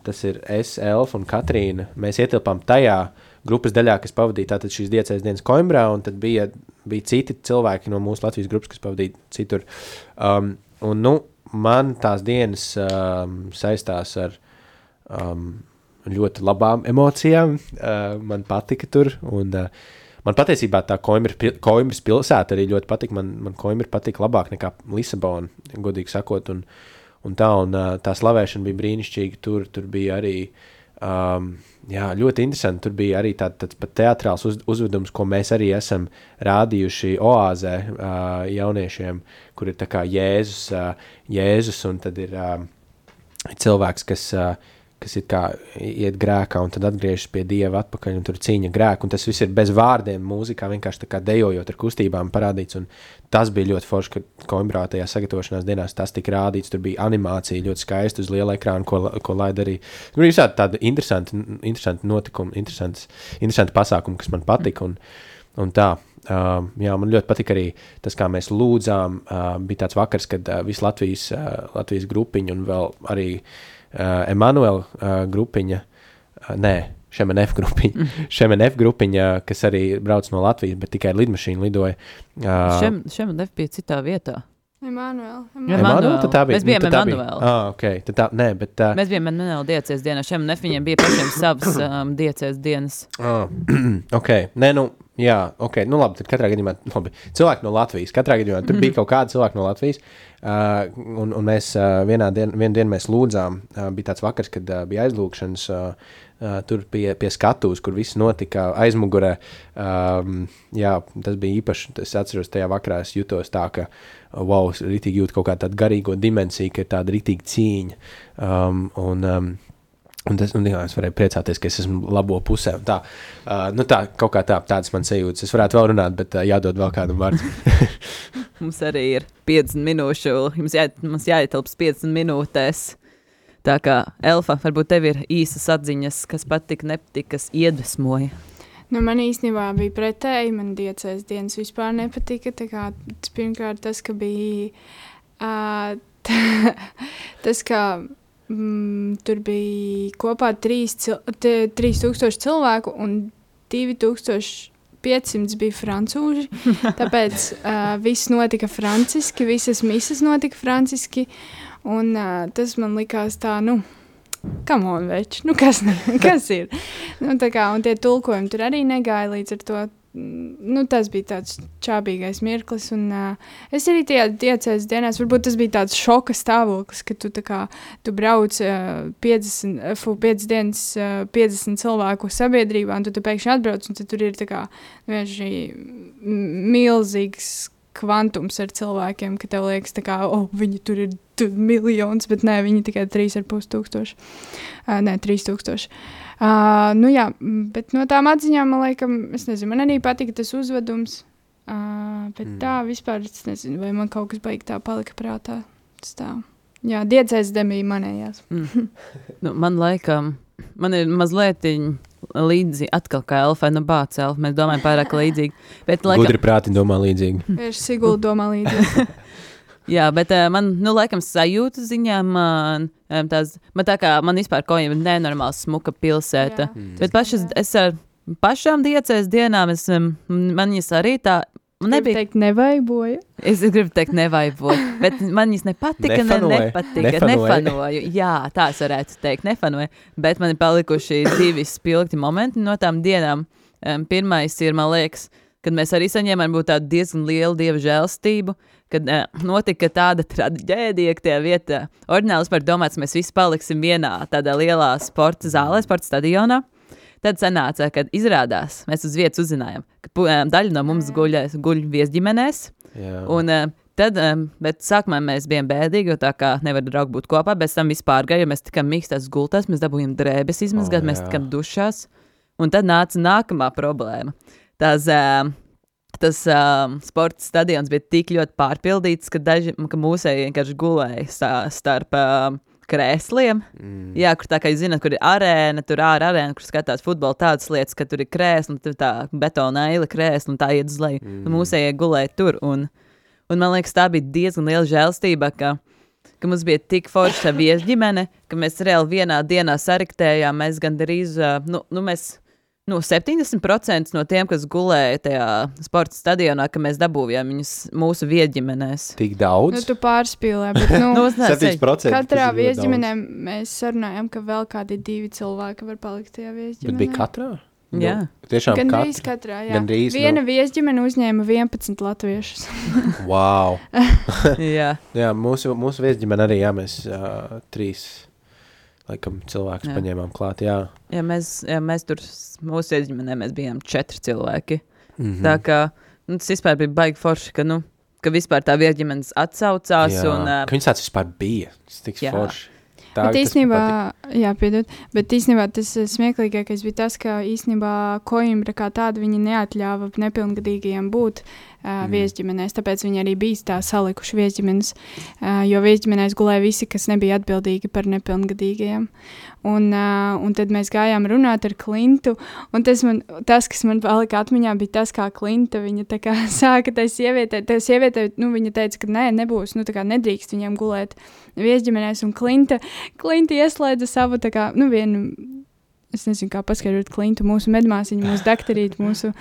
tas ir es, Elfa un Katrīna, mēs ietilpām tajā grupas daļā, kas pavadīja tātad šīs diecēs dienas Koimbrā, un tad bija citi cilvēki no mūsu Latvijas grupas, kas pavadīja citur. Un, nu, man tās dienas saistās ar ļoti labām emocijām. Man patika tur, un man patiesībā tā Koimbras pilsēta arī ļoti patika. Man Koimbra patika labāk nekā Lisabona, godīgi sakot, un tā slavēšana bija brīnišķīga. Tur bija arī ļoti interesanti. Tur bija arī tāds pat teatrāls uzvedums, ko mēs arī esam rādījuši Oāzē jauniešiem, kur ir tā kā Jēzus un tad ir cilvēks, kas ir kā iet grēkā un tad atgriežas pie Dieva atpakaļ un tur cīņa grēku, un tas viss ir bez vārdiem mūzikā, vienkārši tā kā dejojot ar kustībām parādīts, un tas bija ļoti forši, ka Koimbrā tajā sagatavošanās dienās tas tika rādīts, tur bija animācija ļoti skaista uz liela ekrāna, ko laid arī, nu, visādi tādi interesanti notikumi, interesanti pasākumi, kas man patika, un tā. Jā, man ļoti patika arī tas, kā mēs lūdzām, bija tāds vakars, kad visu Latvijas grupiņu un vēl arī Emanuela grupiņa, Šemenef grupiņa, kas arī brauc no Latvijas, bet tikai ar lidmašīnu lidoja. Šemenef bija citā vietā. Emanuela, tad tā bija. Mēs bijām Emanuela. Okay. Mēs bijām Emanuela diecēs dienā. Šemenef viņiem bija pašiem savas diecēs dienas. Nu labi, tad katrā gadījumā, cilvēki no Latvijas, tur bija kaut kādi cilvēki no Latvijas, un mēs vienu dienu mēs lūdzām, bija tāds vakars, kad bija aizlūkšanas, tur pie skatuves, kur viss notika aizmugurē, tas bija īpaši, es atceros tajā vakarā, es jutos tā, ka, wow, ritīgi jūt kaut kā tādu garīgo dimensiju, ka ir tāda ritīgi cīņa, un es varēju priecāties, ka es esmu labo pusē. Tā, kaut kā tādas man sajūtas. Es varētu vēl runāt, bet jādod vēl kādam vārds. Mums arī ir 50 minūšu, mums jāietilps 50 minūtēs. Tā kā, Elfa, varbūt tev ir īsas atziņas, kas patika, nepatika, kas iedvesmoja. Nu, man īstenībā bija pretēji, man diecēs dienas vispār nepatika. Tā kā pirmkārt tas, ka bija tas, ka tur bija kopā 3000 cilvēku un 2500 bija francūži, tāpēc viss notika franciski, visas misas notika franciski, un tas man likās tā, come on, veči, kas ir? Tā kā, un tie tulkojumi tur arī negāja līdz ar to. Tas bija tāds čābīgais mirklis, un es arī tajā diecēs dienās, varbūt tas bija tāds šoka stāvoklis, ka tu brauc 5 dienas 50 cilvēku sabiedrībā, un tu pēkšņi atbrauc, un tad tur ir tā kā milzīgs kvantums ar cilvēkiem, ka tev liekas tā kā, viņi tur ir miljons, bet nē, viņi tikai 3,5 3000. Bet no tām atziņām, man liekas, es nezinu, man arī patika tas uzvedums, bet tā vispār, es nezinu, vai man kaut kas baigi tā palika prātā. Tas tā. Jā, diecēs demija manējās. Man laikam, man ir mazliet līdzi atkal kā Elfai, bāc Elfa, mēs domājam pārāk līdzīgi. Gudri prāti domā līdzīgi. Vērš Sigulda domā līdzīgi. Jā, bet man, laikam sajūta ziņā man tā kā, man vispār kaut jau nenormāli smuka pilsēta. Jā. Bet es ar pašām diecēs dienām, man viņas arī tā, nebija. Gribu teikt, nevaiboja. Es gribu teikt, nevaiboja, bet man viņas nepatika, nefanoju. Jā, tā es varētu teikt, nefanoju, bet man ir palikuši 2 spilgti momenti no tām dienām. Pirmais ir, man liekas, kad mēs arī saņēmām būt tādu diezgan lielu Dieva žēlstību, kad notika tāda traģēdija, ka tajā vietā oriģināli par domāts, mēs visi paliksim vienā tādā lielā sporta zālē, sporta stadionā. Tad sanāca, kad izrādās, mēs uz vietas uzzinājām, ka daļa no mums guļ viesģimenēs. Un bet sākumā mēs bijām bēdīgi, jo tā kā nevar draugi būt kopā, bet tam vispār gāja, jo mēs tikām mīkstās gultās, mēs dabūjām drēbes izmazgāt, mēs tikām dušās. Un tad nāca nākamā problēma. Tas sporta stadions bija tik ļoti pārpildīts, ka mūsēji vienkārši gulēja starp krēsliem. Jā, kur tā kā jūs zināt, kur ir arēna, tur arēna, kur skatās futbola tādas lietas, ka tur ir krēsli, un tur tā betona eila krēsli, un tā iet uz leju. Un mūsējie gulēja tur. Un man liekas, tā bija diezgan liela žēlstība, ka mums bija tik forša viesģimene, ka mēs reāli vienā dienā sariktējām. Mēs gandrīz, mēs 70% no tiem, kas gulēja tajā sporta stadionā, ka mēs dabūjām viņus mūsu viesģimenēs. Tik daudz? Tu pārspīlē, bet 7%. Katrā viesģimenē mēs sarunājam, ka vēl kādi 2 cilvēki var palikt tajā viesģimenē. Bet bija katrā? Jā. Tiešām Gandrīz katrā, jā. Viena viesģimene uzņēma 11 latviešus. Wow. Jā. Jā, mūsu viesģimene arī, jā, mēs 3 laikam cilvēkus paņēmām klāt, jā. Jā, mēs tur, mūsu viesģimenē mēs bijām 4 cilvēki. Tā kā, tas vispār bija baigi forši, ka vispār tā viesģimenes atsaucās. Jā, un, ka viņas tāds vispār bija. Tas tiks forši. Tā, bet īstenībā tas smieklīgākais bija tas, ka īstenībā Koimbra kā tāda viņa neatļāva nepilngadīgajiem būt viesģimenēs, tāpēc viņi arī bija tā salikuši viesģimenes, jo viesģimenēs gulēja visi, kas nebija atbildīgi par nepilngadīgajiem. Un tad mēs gājām runāt ar Klintu, un tas, kas man palika atmiņā, bija tas, kā Klinta, viņa tā kā sāka tai sievietē, viņa teica, ka nebūs, tā kā nedrīkst viņiem gulēt viesģimenēs, un Klinta ieslēdza savu, tā kā, vienu, es nezinu, kā paskaidrot Klintu, mūsu medmāsiņu, mūsu dakterīti, mūsu...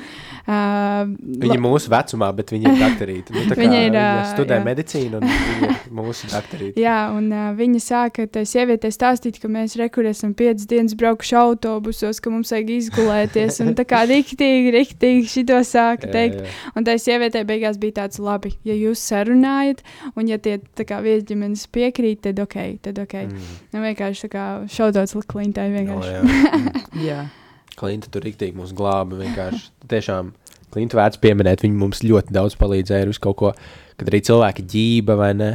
Viņa ir mūsu vecumā, bet viņa ir dakterīti. Viņa studē medicīnu, un viņa ir mūsu dakterīti. Jā, un viņa sāka tai sievietē stāstīt, ka mēs esam 5 dienas braukuši autobusos, ka mums vajag izgulēties, un tā kā riktīgi šito sāka teikt. Jā. Un tai sievietē beigās bija tāds labi, ja jūs sarunājat, un ja tie tā kā viesģimenes piekrīt, tad ok. Vienkārši tā kā šaudauts Klintai vienkārši. Jā. Klinta tur riktīgi mūs glāba vienkārši. Tiešām Klinta vērts pieminēt, viņi mums ļoti daudz palīdzēja ar visu kaut ko, kad arī cilvēki ģība vai ne,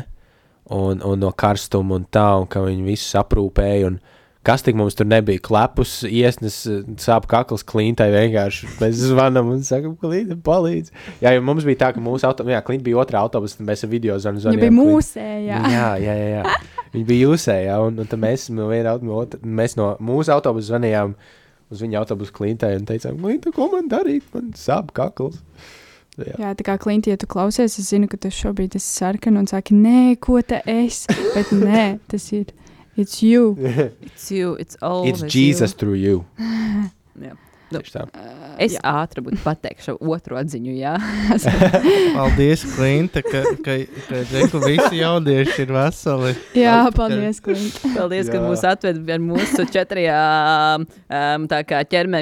un no karstuma un tā, un ka viņi visus aprūpēja, un kas tik mums tur nebija, klepus, iesnes, sāp kakls Klintai vienkārši. Mēs zvanam un sakam, Klinta palīdz. Jā, jo mums bija tā, ka Klinta bija otrā autobusa, un mēs ar video zvanījām. Viņa bija mūsējā. Jā. Viņa bija jūsējā, un tad mēs no mūsu autobusa zvanījām uz viņa autobusu Klintai un teicām, Klinta, ko man darīt? Man sāp kakls. Jā, tā kā Klinti, ja tu klausies, es zinu, ka tu šobrīd esi sarkana un saki, nē, ko ta es? Bet nē, tas ir, it's you. It's you, it's always you. It's Jesus through you. Jā. Es ātri būtu pateikšu otru atziņu, jā. Paldies, Klinta, ka visi jaunieši ir veseli. Jā, paldies, Klinta. Paldies, ka mūs atved ar mūsu 4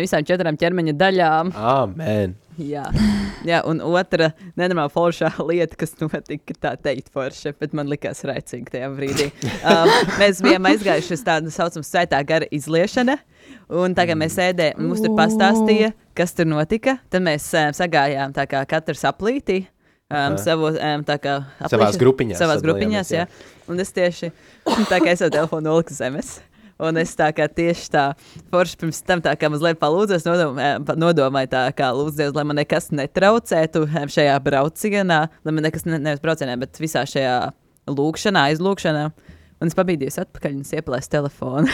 visām 4 ķermeņa daļām. Amen. Jā, un otra nenormāla foršā lieta, kas notika, tā teikt forša, bet man likās raicīgi tajā brīdī. Mēs bijām aizgājuši uz tādu saucamu svētā gara izliešana, un tā kā mēs sēdējām, mums tur pastāstīja, kas tur notika, tad mēs sagājām tā kā katrs aplītī, savās grupiņās, jā. Un es tieši, tā kā es savu telefonu noliku zemes. Un es tā kā tieši tā forši pirms tam tā kā mazliet palūdzos, nodomāju tā kā lūdzu Dievs, lai man nekas netraucētu šajā braucienā, lai man nekas nevis braucienā, bet visā šajā aizlūkšanā. Un es pabīdījos atpakaļ un es ieplēsu telefonu.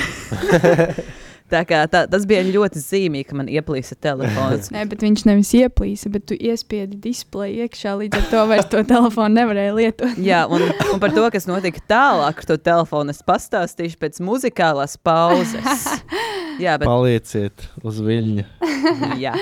Tā kā tas bija ļoti zīmīgi, ka man ieplīsa telefons. Nē, bet viņš nevis ieplīsa, bet tu iespiedi displeju iekšā, līdz ar to vairs to telefonu nevarēja lietot. Jā, un par to, kas notika tālāk ar to telefonu, es pastāstīšu pēc muzikālās pauzes. Jā, bet... Palieciet uz viļņa. Jā.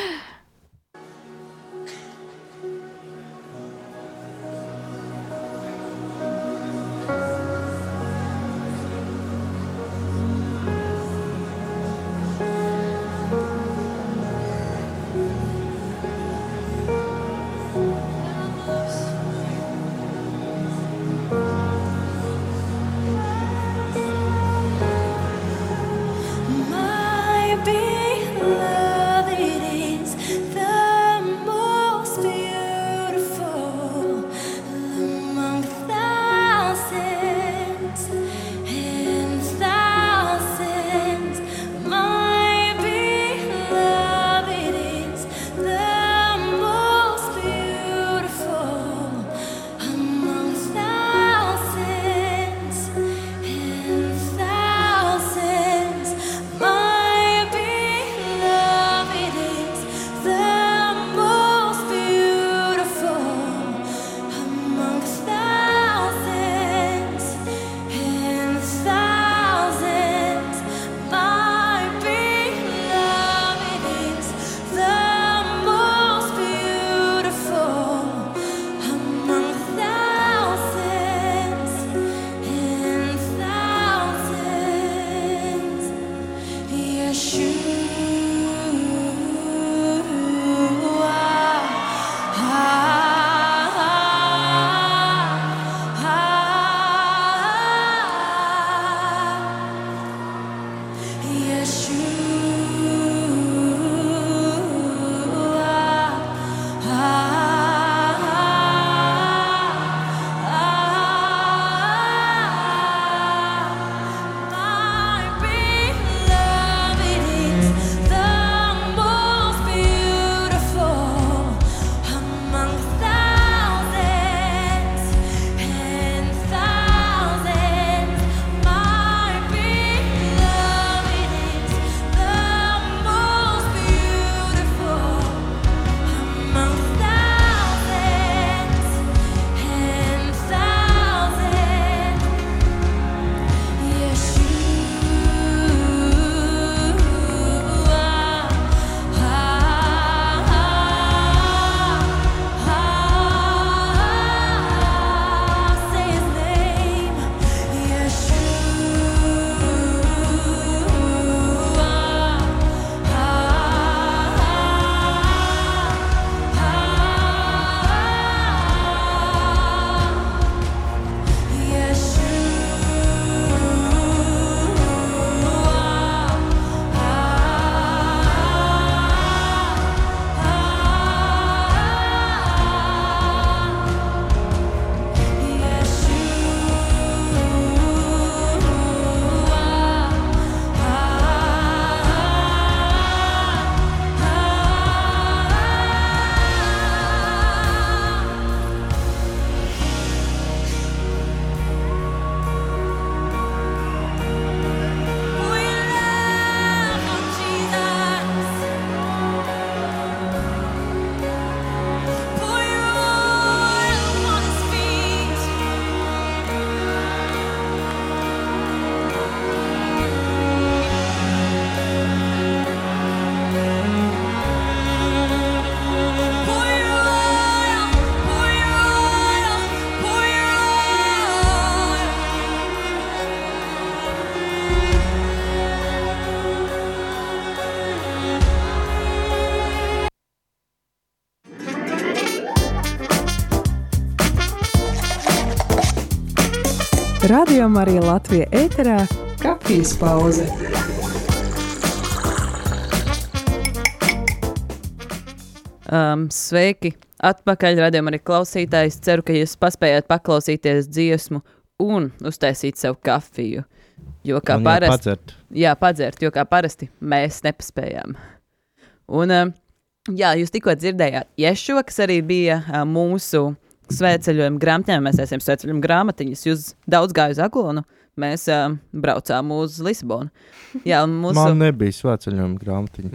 Radio Marija Latvija ēterā kafijas pauze. Sveiki! Atpakaļ radījumam arī klausītājs. Ceru, ka jūs paspējāt paklausīties dziesmu un uztaisīt sev kafiju. Jo kā parasti... padzert, jo kā parasti mēs nepaspējām. Un, jūs tikko dzirdējāt Ješo, kas arī bija mūsu svētceļojuma grāmatņā. Mēs esam svētceļojuma grāmatiņas. Jūs daudz gāju uz Aglonu. Mēs braucām uz Lisabonu. Jā, Man nebija svētceļojuma grāmatiņa.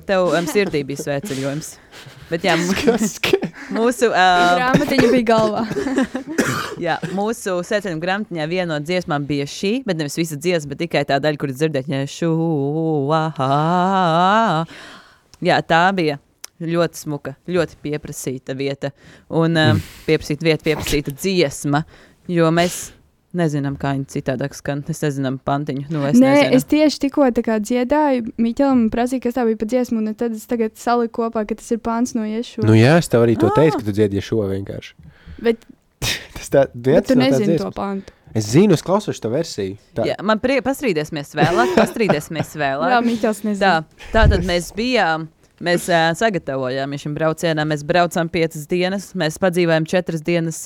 Tev sirdī bija svētceļojums. Bet jā, mūsu... grāmatiņa bija galvā. Jā, mūsu svētceļojuma grāmatiņā viena no dziesmām bija šī, bet nevis visa dziesma, bet tikai tā daļa, kur dzirdēt, jā, tā bija ļoti smuka, ļoti pieprasīta vieta. Un pieprasīta dziesma, jo mēs... Nezinām, kā viņi citādāk skan. Es nezinām pantiņu. Nezinu. Es tieši tikko tā kā dziedāju Miķelam un prasīju, kas tā bija pa dziesmu, un tad es tagad saliku kopā, ka tas ir pants no Ješo. Nu jā, es tev arī to teicu, ka tu dziedi Ješo vienkārši. Bet tu nezini to pantu. Es zinu, es klausošu to versiju. Tā. Jā, man pastrīdēsimies vēlāk. Jā, Miķels nezinu. Tā tad mēs bijām... Mēs sagatavojām šim braucienam, mēs braucām 5 dienas, mēs padzīvājām 4 dienas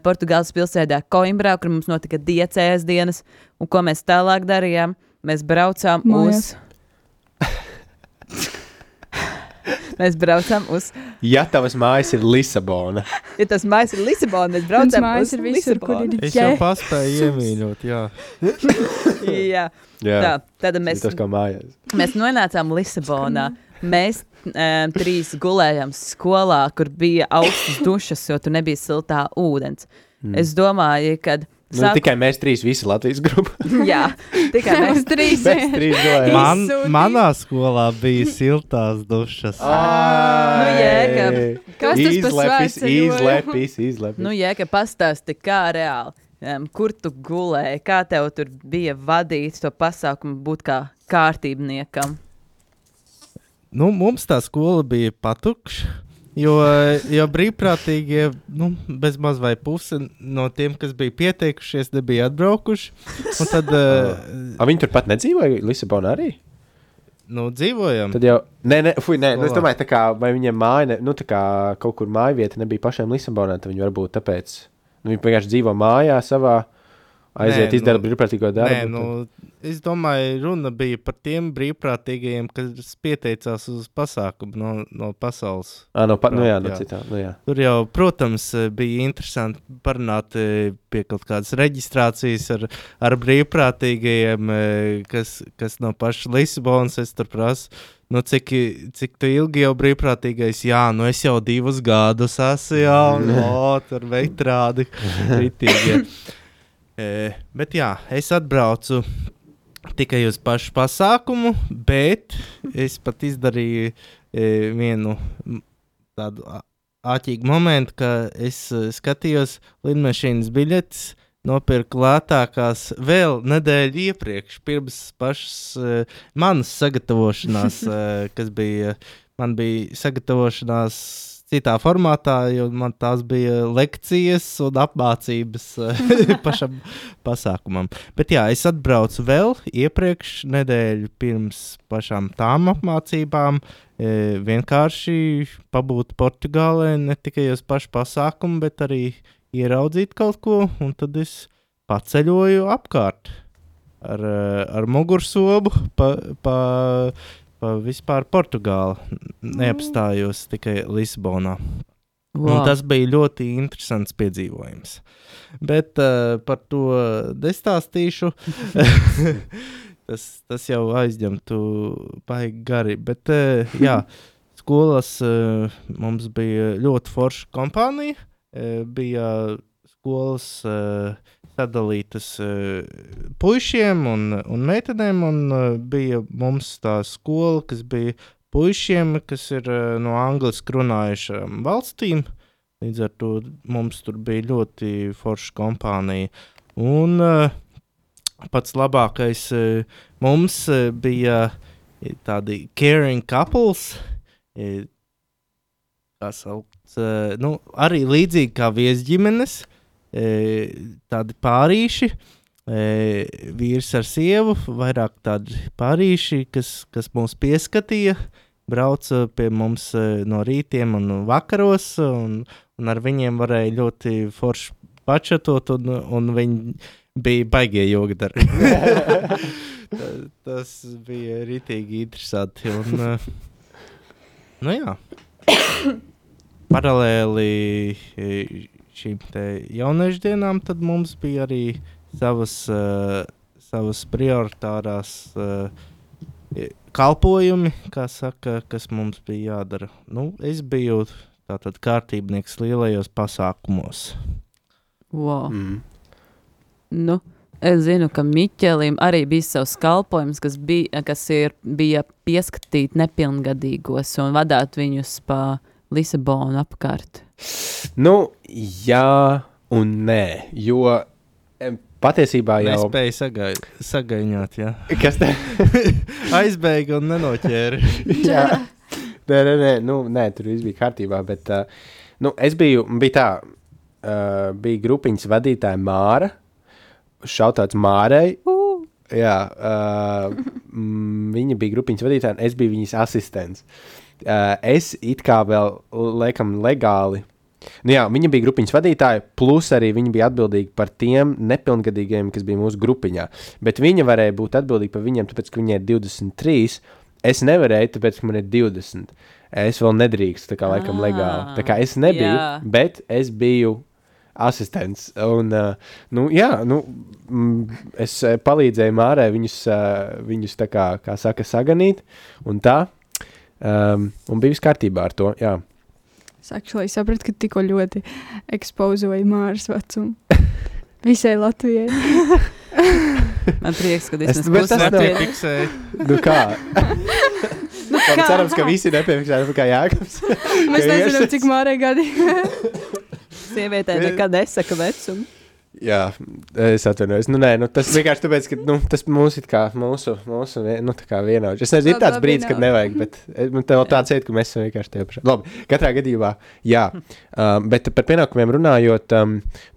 Portugāles pilsētā Coimbrā, kur mums notika diecējas dienas, un ko mēs tālāk darījām? Mēs braucām Mēs braucām uz... Ja tavas mājas ir Lisabona. Ja tas mājas ir Lisabona, mēs braucām uz Lisabonu. Es jau paspēju iemīļot, jā. Jā. Tātad mēs... Tas kā mājās. Mēs nonācām Lisabonā. Mēs 3 gulējām skolā, kur bija augstas dušas, jo tur nebija siltā ūdens. Es domāju, kad... Tikai mēs 3 visi Latvijas grupa. Jā, tikai mēs 3. Mēs 3 gulējām. Manā skolā bija siltās dušas. Jēkab. Kas tas par svētceļojumu? Izlepis. Jēkab, pastāsti, kā reāli. Kur tu gulēji? Kā tev tur bija vadīt to pasākumu būt kā kārtībniekam? Mums tā skola bija patukša, jo brīvprātīgie, bezmaz vai puse no tiem, kas bija pieteikušies, nebija atbraukuši. Un tad... Viņi turpat nedzīvoja Lisabonā arī? Dzīvojam. Tad jau... Nē, es domāju, tā kā, vai viņiem māja, tā kā kaut kur mājvieta nebija pašiem Lisabonā, tad viņi varbūt tāpēc, viņi vienkārši dzīvo mājā savā, aiziet izdara brīvprātīgo darbu. Es domāju, runa bija par tiem brīvprātīgajiem, kas pieteicās uz pasākumu no pasaules. Jā. Tur jau, protams, bija interesanti parunāt pie kaut kādas reģistrācijas ar brīvprātīgajiem, kas no paša Lisabonas. Es tur prasu, cik tu ilgi jau brīvprātīgais? Jā, es jau 2 gadus esmu, tur veitrādi kritīgi. Bet jā, es atbraucu tikai uz pašu pasākumu, bet es pat izdarīju vienu tādu āķīgu momentu, ka es skatījos lidmašīnas biļetes, nopirku lētākās vēl nedēļu iepriekš, pirms pašas manas sagatavošanās, man bija sagatavošanās citā formātā, jo man tās bija lekcijas un apmācības pašam pasākumam. Bet jā, es atbraucu vēl iepriekš nedēļu pirms pašām tām apmācībām, vienkārši pabūt Portugālē, ne tikai uz pašu pasākumu, bet arī ieraudzīt kaut ko, un tad es paceļoju apkārt ar mugursobu pa vispār Portugāli. Neapstājos tikai Lisabonā. Wow. Un tas bija ļoti interesants piedzīvojums. Bet par to nestāstīšu. tas jau aizņemtu baigi gari. Bet jā, skolas mums bija ļoti forša kompānija. Bija skolas sadalītas puišiem un meitenēm, un bija mums tā skola, kas bija puišiem, kas ir no angliski runājušām valstīm. Līdz ar to mums tur bija ļoti forša kompānija. Un pats labākais mums bija tādi caring couples, kā sauc, arī līdzīgi kā viesģimenes, tādi pārīši, vīrs ar sievu, vairāk tādi pārīši, kas mūs pieskatīja, brauca pie mums no rītiem un vakaros, un ar viņiem varēja ļoti forši pačatot, un viņi bija baigie jogadari. Tas bija ritīgi interesanti, un nu jā, paralēli šīm te jauniešu dienām, tad mums bija arī savas prioritārās kalpojumi, kā saka, kas mums bija jādara. Nu, es biju tātad kārtībnieks lielajos pasākumos. Wow. Nu, es zinu, ka Miķelim arī bija savs kalpojums, kas bija pieskatīt nepilngadīgos un vadāt viņus pa Lisabonu apkārt. Nu, jā un nē, jo patiesībā jau... Nespēja sagaiņot, jā. Kas te? Aizbēga un nenoķēra. Jā. Nē, tur viss bija kārtībā, bet es bija tā, bija grupiņas vadītāja Māra, šautāts Mārai. Jā, viņa bija grupiņas vadītāja, un es biju viņas asistents. Es it kā vēl, laikam, legāli. Nu jā, viņa bija grupiņas vadītāja, plus arī viņa bija atbildīga par tiem nepilngadīgiem, kas bija mūsu grupiņā. Bet viņa varēja būt atbildīga par viņiem, tāpēc, ka viņai ir 23. Es nevarēju, tāpēc, ka man ir 20. Es vēl nedrīkstu, tā kā laikam legāli. Tā kā es nebiju, bet es biju asistents. Un, es palīdzēju Mārai viņus tā kā saka, saganīt, un tā. Un bija viss kārtībā ar to, jā. Es sapratu, ka tikko ļoti ekspozoja Māras vecumu. Visai Latvijai. Man prieks, ka es nepiefiksēju. Nu kā? Cerams, ka visi nepiefiksēja, kā Jākabs. Mēs nezinām, cik Mārai gadi. Sievietē nekad nesaka vecumu. Jā, es atvainojos. Tas vienkārši tāpēc, ka tas mūsu tā kā vienaudži. Es nezinu, ir tāds brīdis, kad nevajag, bet tev tāds iet, ka mēs esam vienkārši tie paši. Labi, katrā gadījumā, jā. Bet par pienākumiem runājot,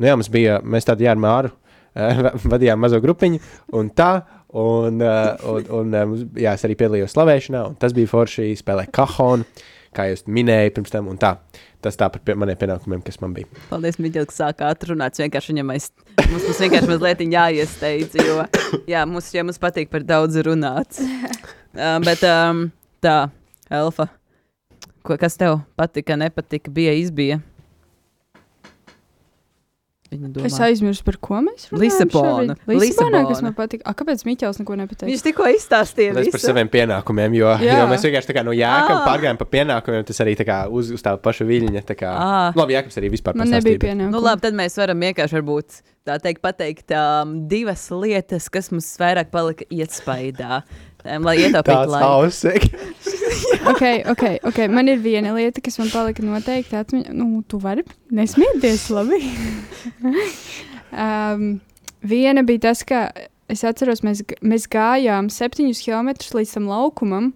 mēs tādi ar Māru vadījām mazo grupiņu, un tā, es arī piedalījos slavēšanā, un tas bija forši, spēlē kahonu, kā jūs minēju pirms tam, un tā. Tas tā par maniem pienākumiem, kas man bija. Paldies, Miķel, ka sākā atrunāts. Vienkārši viņam mums vienkārši mazliet jāiesteidz, jo mums patīk par daudz runāt. Bet tā, Elfa, kas tev patika, nepatika, izbija? Es aizmirsu, par ko mēs runājam. Lisabonā, kas man patika. Kāpēc Miķels neko nepateica? Viņš tikko izstāstīja visu. Par saviem pienākumiem, jo mēs vienkārši tā kā no Jākam pārgājām pa pienākumiem, tas arī tā kā uz tā paša viļņa. Labi, Jākams arī vispār pastāstīja. Man nebija pienākumi. Nu labi, tad mēs varam vienkārši varbūt tā pateikt divas lietas, kas mums vairāk palika iespaidā. Lai ietaupītu laiku. Tāds hausek. Ok. Man ir viena lieta, kas man palika noteikti atmiņā. Tu vari nesmieties, labi. Viena bija tas, ka es atceros, mēs gājām 7 kilometrus līdz tam laukumam.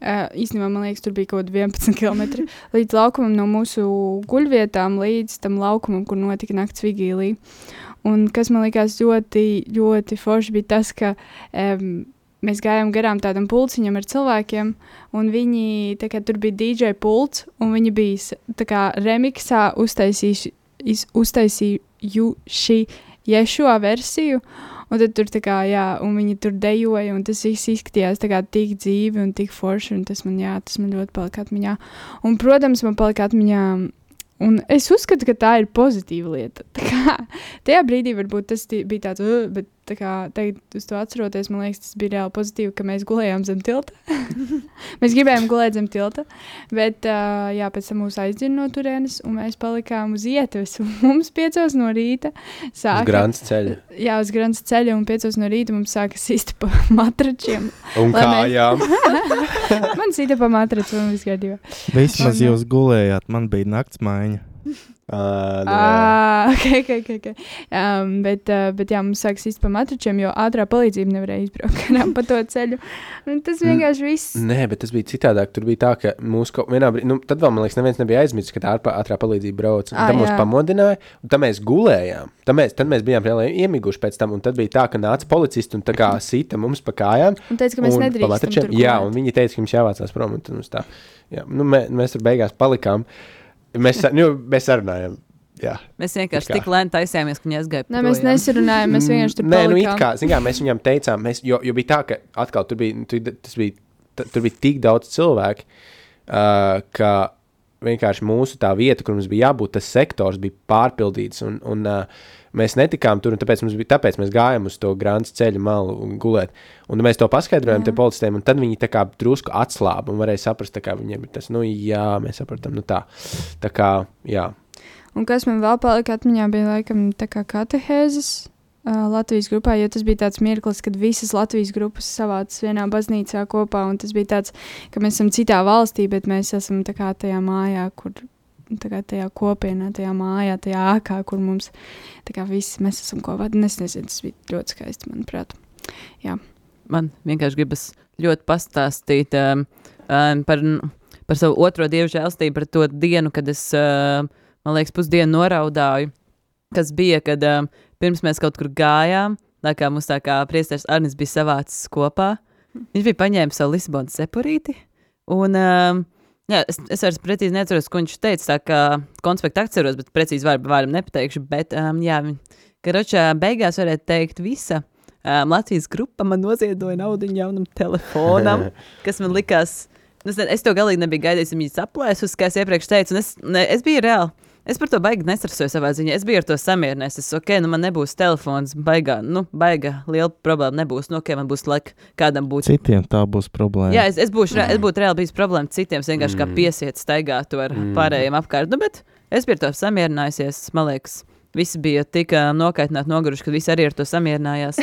Īstenībā, man liekas, tur bija kaut 11 kilometri. Līdz laukumam no mūsu guļvietām, līdz tam laukumam, kur notika nakts vigīlija. Un kas man likās ļoti, ļoti forši bija tas, ka mēs gājām garām tādam pulciņam ar cilvēkiem, un viņi, tur bija DJ pults, un viņi bija remiksā uztaisījuši Ješua versiju, un tad tur un viņi tur dejoja, un tas viss izskatījās tik dzīvi un tik forši, un tas man ļoti palika atmiņā. Un, protams, man palika atmiņā, un es uzskatu, ka tā ir pozitīva lieta. Tajā brīdī varbūt tas bija tāds, bet tagad uz to atceroties, man liekas, tas bija reāli pozitīvi, ka mēs gulējām zem tilta. Mēs gribējām gulēt zem tilta, bet pēc tam mūs aizdzina no turienes, un mēs palikām uz ietves, un mums 5 no rīta sāka... Uz Grants ceļa. Jā, uz Grants ceļa, un 5 no rīta mums sāka sist pa matračiem. Un kājām. Man sita pa matraču, un viss kārtībā. Vismaz jūs gulējāt, man bija nakts maiņa. Okay. Bet jā, mums sāks īsti pa matračiem, jo ātrā palīdzība nevarēja izbraukt pa to ceļu. Un tas vienkārši viss. Nē, bet tas bija citādāk. Tur bija tā, ka mūsu vienā brīdī, tad vēl, man liekas, neviens nebija aizmirsis, ka tā ātrā palīdzība brauc. Un tad mūs pamodināja, un tad mēs gulējām. Tad mēs bijām reāli iemiguši pēc tam, un tad bija tā, ka nāca policisti un tā kā sita mums pa kājām. Un teica, ka mēs nedrīkstam tur gulēt. Jā, un viņi teica, ka mums jāvācās prom, un tad mums tā. Jā, mēs tur beigās palikām. Mēs sarunājām. Jā. Mēs vienkārši tik lēni taisījāmies, ka viņi aizgāja. Nē, mēs nesarunājām, mēs vienkārši tur palikām. Nē, it kā, zin kā, mēs viņam teicām, jo bija tā, ka atkal tur bija tik daudz cilvēku, ka vienkārši mūsu tā vieta, kur mums bija jābūt, tas sektors bija pārpildīts, un mēs netikām tur, un tāpēc mēs gājām uz to Grāns ceļa malu un gulēt. Un mēs to paskaidrojām te policistiem, un tad viņi tā kā drusku atslāba un varēja saprast, tā kā viņiem ir tas, mēs sapratam, tā kā, jā. Un kas man vēl palika atmiņā bija laikam tā kā katehēzes Latvijas grupā, jo tas bija tāds mirklis, kad visas Latvijas grupas savācas vienā baznīcā kopā, un tas bija tāds, ka mēs esam citā valstī, bet mēs esam tā kā tajā mājā, kur tā kā tajā kopienā, tajā mājā, tajā ākā, kur mums tā kā visi mēs esam kopā. Es nezinu, tas bija ļoti skaisti, manuprāt. Jā. Man vienkārši gribas ļoti pastāstīt par savu otro dievu žēlstību, par to dienu, kad es, man liekas, pusdienu noraudāju, kas bija, kad pirms mēs kaut kur gājām, tā kā mums tā kā priesteris Arnis bija savācis kopā. Viņš bija paņēmis savu Lisabonas cepurīti, un jā, es vairs precīzi neatceros, ko viņš teica, tā kā konspektu atceros, bet precīzi vārdam nepateikšu, bet jā, karočā beigās varētu teikt visa Latvijas grupa man noziedoja naudiņu jaunam telefonam, kas man likās, es to galīgi nebiju gaidījis, viņi saplēsus, kā es iepriekš teicu, un es biju reāli. Es par to baigi nestrasoju savā ziņā. Es biju ar to samierinājies. Man nebūs telefons, baiga liela problēma nebūs. Man būs laika kādam būt. Citiem tā būs problēma. Jā, es būtu reāli bijis problēma citiem, vienkārši kā piesiet staigātu ar pārējiem apkārt. Bet es biju ar to samierinājusies. Man liekas, visi bija tik nokaitināti, noguruši, ka visi arī ar to samierinājās.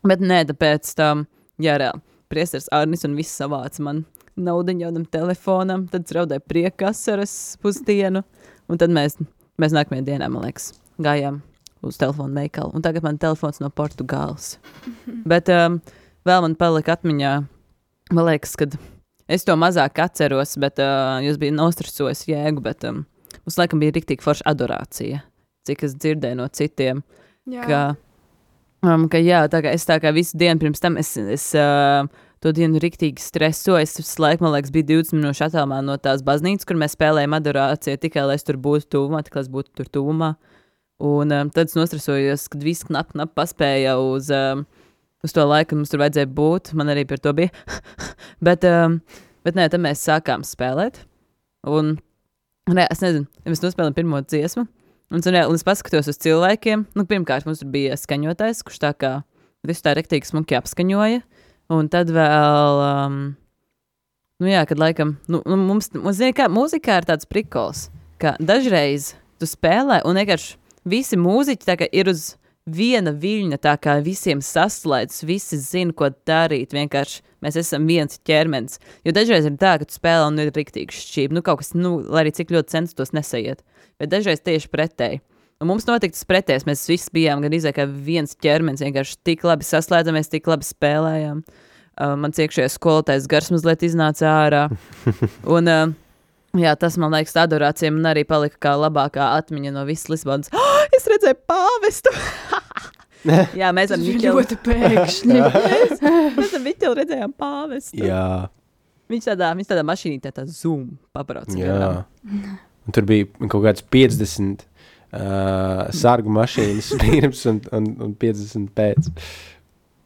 bet nē, tāpēc jā, reāli. Priesteris Arnis un viss savāca man naudiņu jaunam telefonam, tad es raudēju priekasaras pusdienu, un tad mēs nākamajā dienā, man liekas, gājām uz telefonu veikalu, un tagad man telefons no Portugāles. Bet vēl man palika atmiņā, man liekas, kad es to mazāk atceros, bet jūs bija nostresojis jēgu, bet mums laikam bija riktīgi forša adorācija, cik es dzirdēju no citiem, ka jā, es tā kā visu dienu pirms tam es to dienu riktīgi stresoju. Es laikam, man liekas, bija 20 minūšu attālumā no tās baznīcas, kur mēs spēlējām adorāciju, tikai lai es tur būtu tuvumā, tikai lai es būtu tur tuvumā. Un tad es nostresojos, kad viss knap paspēja uz to laiku, kad mums tur vajadzēja būt. Man arī par to bija. bet nē, tad mēs sākām spēlēt. Un es nezinu, mēs nospēlējām pirmo dziesmu. Un es paskatos uz cilvēkiem. Pirmkārt, mums tur bija skaņotājs, kurš tā kā visu tā riktīgi smuki apskaņoja. Un tad vēl, kad laikam, mums zina, kā mūzikā ir tāds prikols, ka dažreiz tu spēlē un vienkārši visi mūziķi tā kā ir uz viena viļņa, tā kā visiem saslēdz, visi zina, ko darīt, vienkārši mēs esam viens ķermenis. Jo dažreiz ir tā, ka tu spēlē un ir riktīgi šķība, kaut kas, lai arī cik ļoti censtos nesaiet, bet dažreiz tieši pretēji. Un mums notika tas pretējs, mēs visi bijām gan kā viens ķermenis, vienkārši tik labi saslēdzamies, tik labi spēlējām. Mans iekšējais skolotājs gars mazliet iznāca ārā. Un, jā, tas, man liekas, adorācija man arī palika kā labākā atmiņa no visas Lisabonas. Es redzēju pāvestu! Jā, mēs ar Miķeli. Ļoti pēkšņi. Mēs ar Miķeli redzējām pāvestu. Jā. Viņš tādā mašīnītē tā zoom pabrauc. Jā. Un tur bija kaut kāds 50 sargu mašīnas pirms un 50 pēc.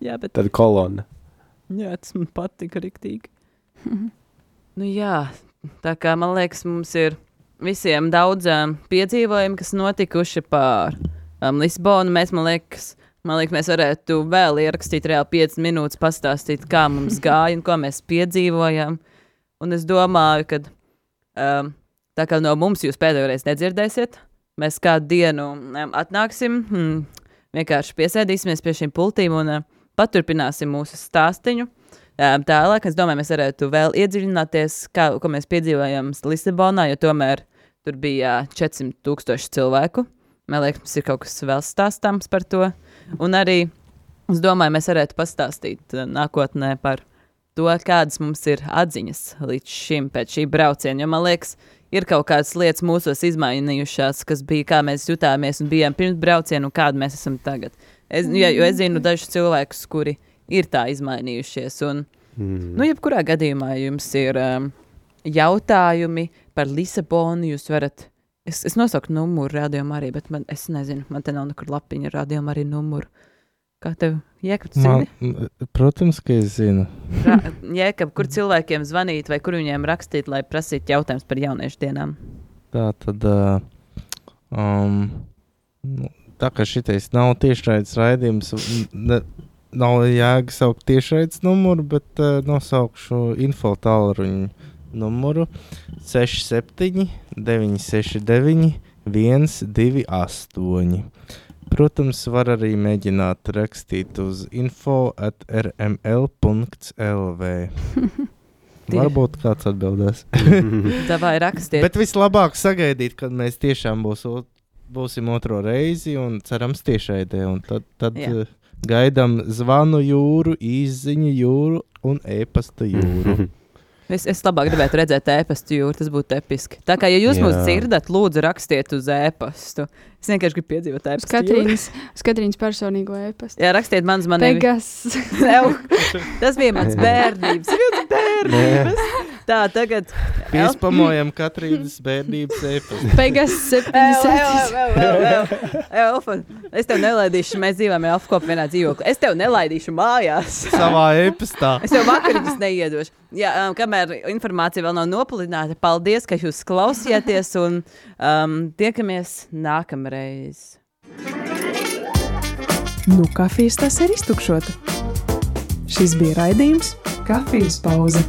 Jā, bet... Tad kolona. Jā, tas man patika riktīgi. Jā, tā kā man liekas, mums ir visiem daudz piedzīvojumi, kas notikuši pār Lisabonu. Mēs, man liekas, mēs varētu vēl ierakstīt reāli 5 minūtes, pastāstīt, kā mums gāja un ko mēs piedzīvojām. Un es domāju, ka tā kā no mums jūs pēdējoreiz nedzirdēsiet, mēs kādu dienu atnāksim, vienkārši piesēdīsimies pie šīm pultīm un paturpināsim mūsu stāstiņu. Tālāk, es domāju, mēs varētu vēl iedziļināties, ko mēs piedzīvojam Lisabonā, jo tomēr Tur bija 400,000 cilvēku. Man liekas, mums ir kaut kas vēl stāstāms par to. Un arī, es domāju, mēs varētu pastāstīt nākotnē par to, kādas mums ir atziņas līdz šim pēc šī brauciena. Jo man liekas, ir kaut kādas lietas mūsos izmainījušās, kas bija, kā mēs jutāmies un bijām pirms brauciena un kādi mēs esam tagad. Jo es zinu dažus cilvēkus, kuri ir tā izmainījušies. Un, jebkurā gadījumā jums ir jautājumi par Lisabonu, jūs varat... Es nosauku numuru rādījumā arī, bet es nezinu, man te nav nekur lapiņa rādījumā arī numuru. Kā tev, Jēkab, tu zini? Protams, ka es zinu. Jēkab, kur cilvēkiem zvanīt vai kur viņiem rakstīt, lai prasītu jautājumus par jauniešu dienām? Tā tad, tā kā šitais nav tiešraides raidījums, nav jēga saukt tiešraides numuru, bet nosaukšu info tālruņu numuru 67 969 128. Protams, var arī mēģināt rakstīt uz info@rml.lv. Varbūt kāds atbildēs. Davai rakstiet. Bet vislabāk sagaidīt, kad mēs tiešām būsim otro reizi un cerams tiešraidē. Un tad gaidām zvanu jūru, īsziņu jūru un e-pasta jūru. Es labāk gribētu redzēt e-pastu jūru, tas būtu episki. Tā kā, ja jūs mūs dzirdat, lūdzu rakstiet uz e-pastu. Es vienkārši gribu piedzīvot e-pastu jūru. Katrīnas personīgo e-pastu. Jā, rakstiet mans manī. Tas bija mans bērnības. Tā, tagad... Piespamojam Katrīnas bērnības e-pastu. Pegas 77. Es tev nelaidīšu, mēs dzīvojam Elfkopu vienā dzīvokli. Es tev nelaidīšu mājās. Savā e-pastā. Es tev vakariņas neiedošu. Jā, kamēr informācija vēl nav nopulināta, paldies, ka jūs klausījāties un tiekamies nākamreiz. Kafijas tas ir iztukšota. Šis bija raidījums Kafijas pauze.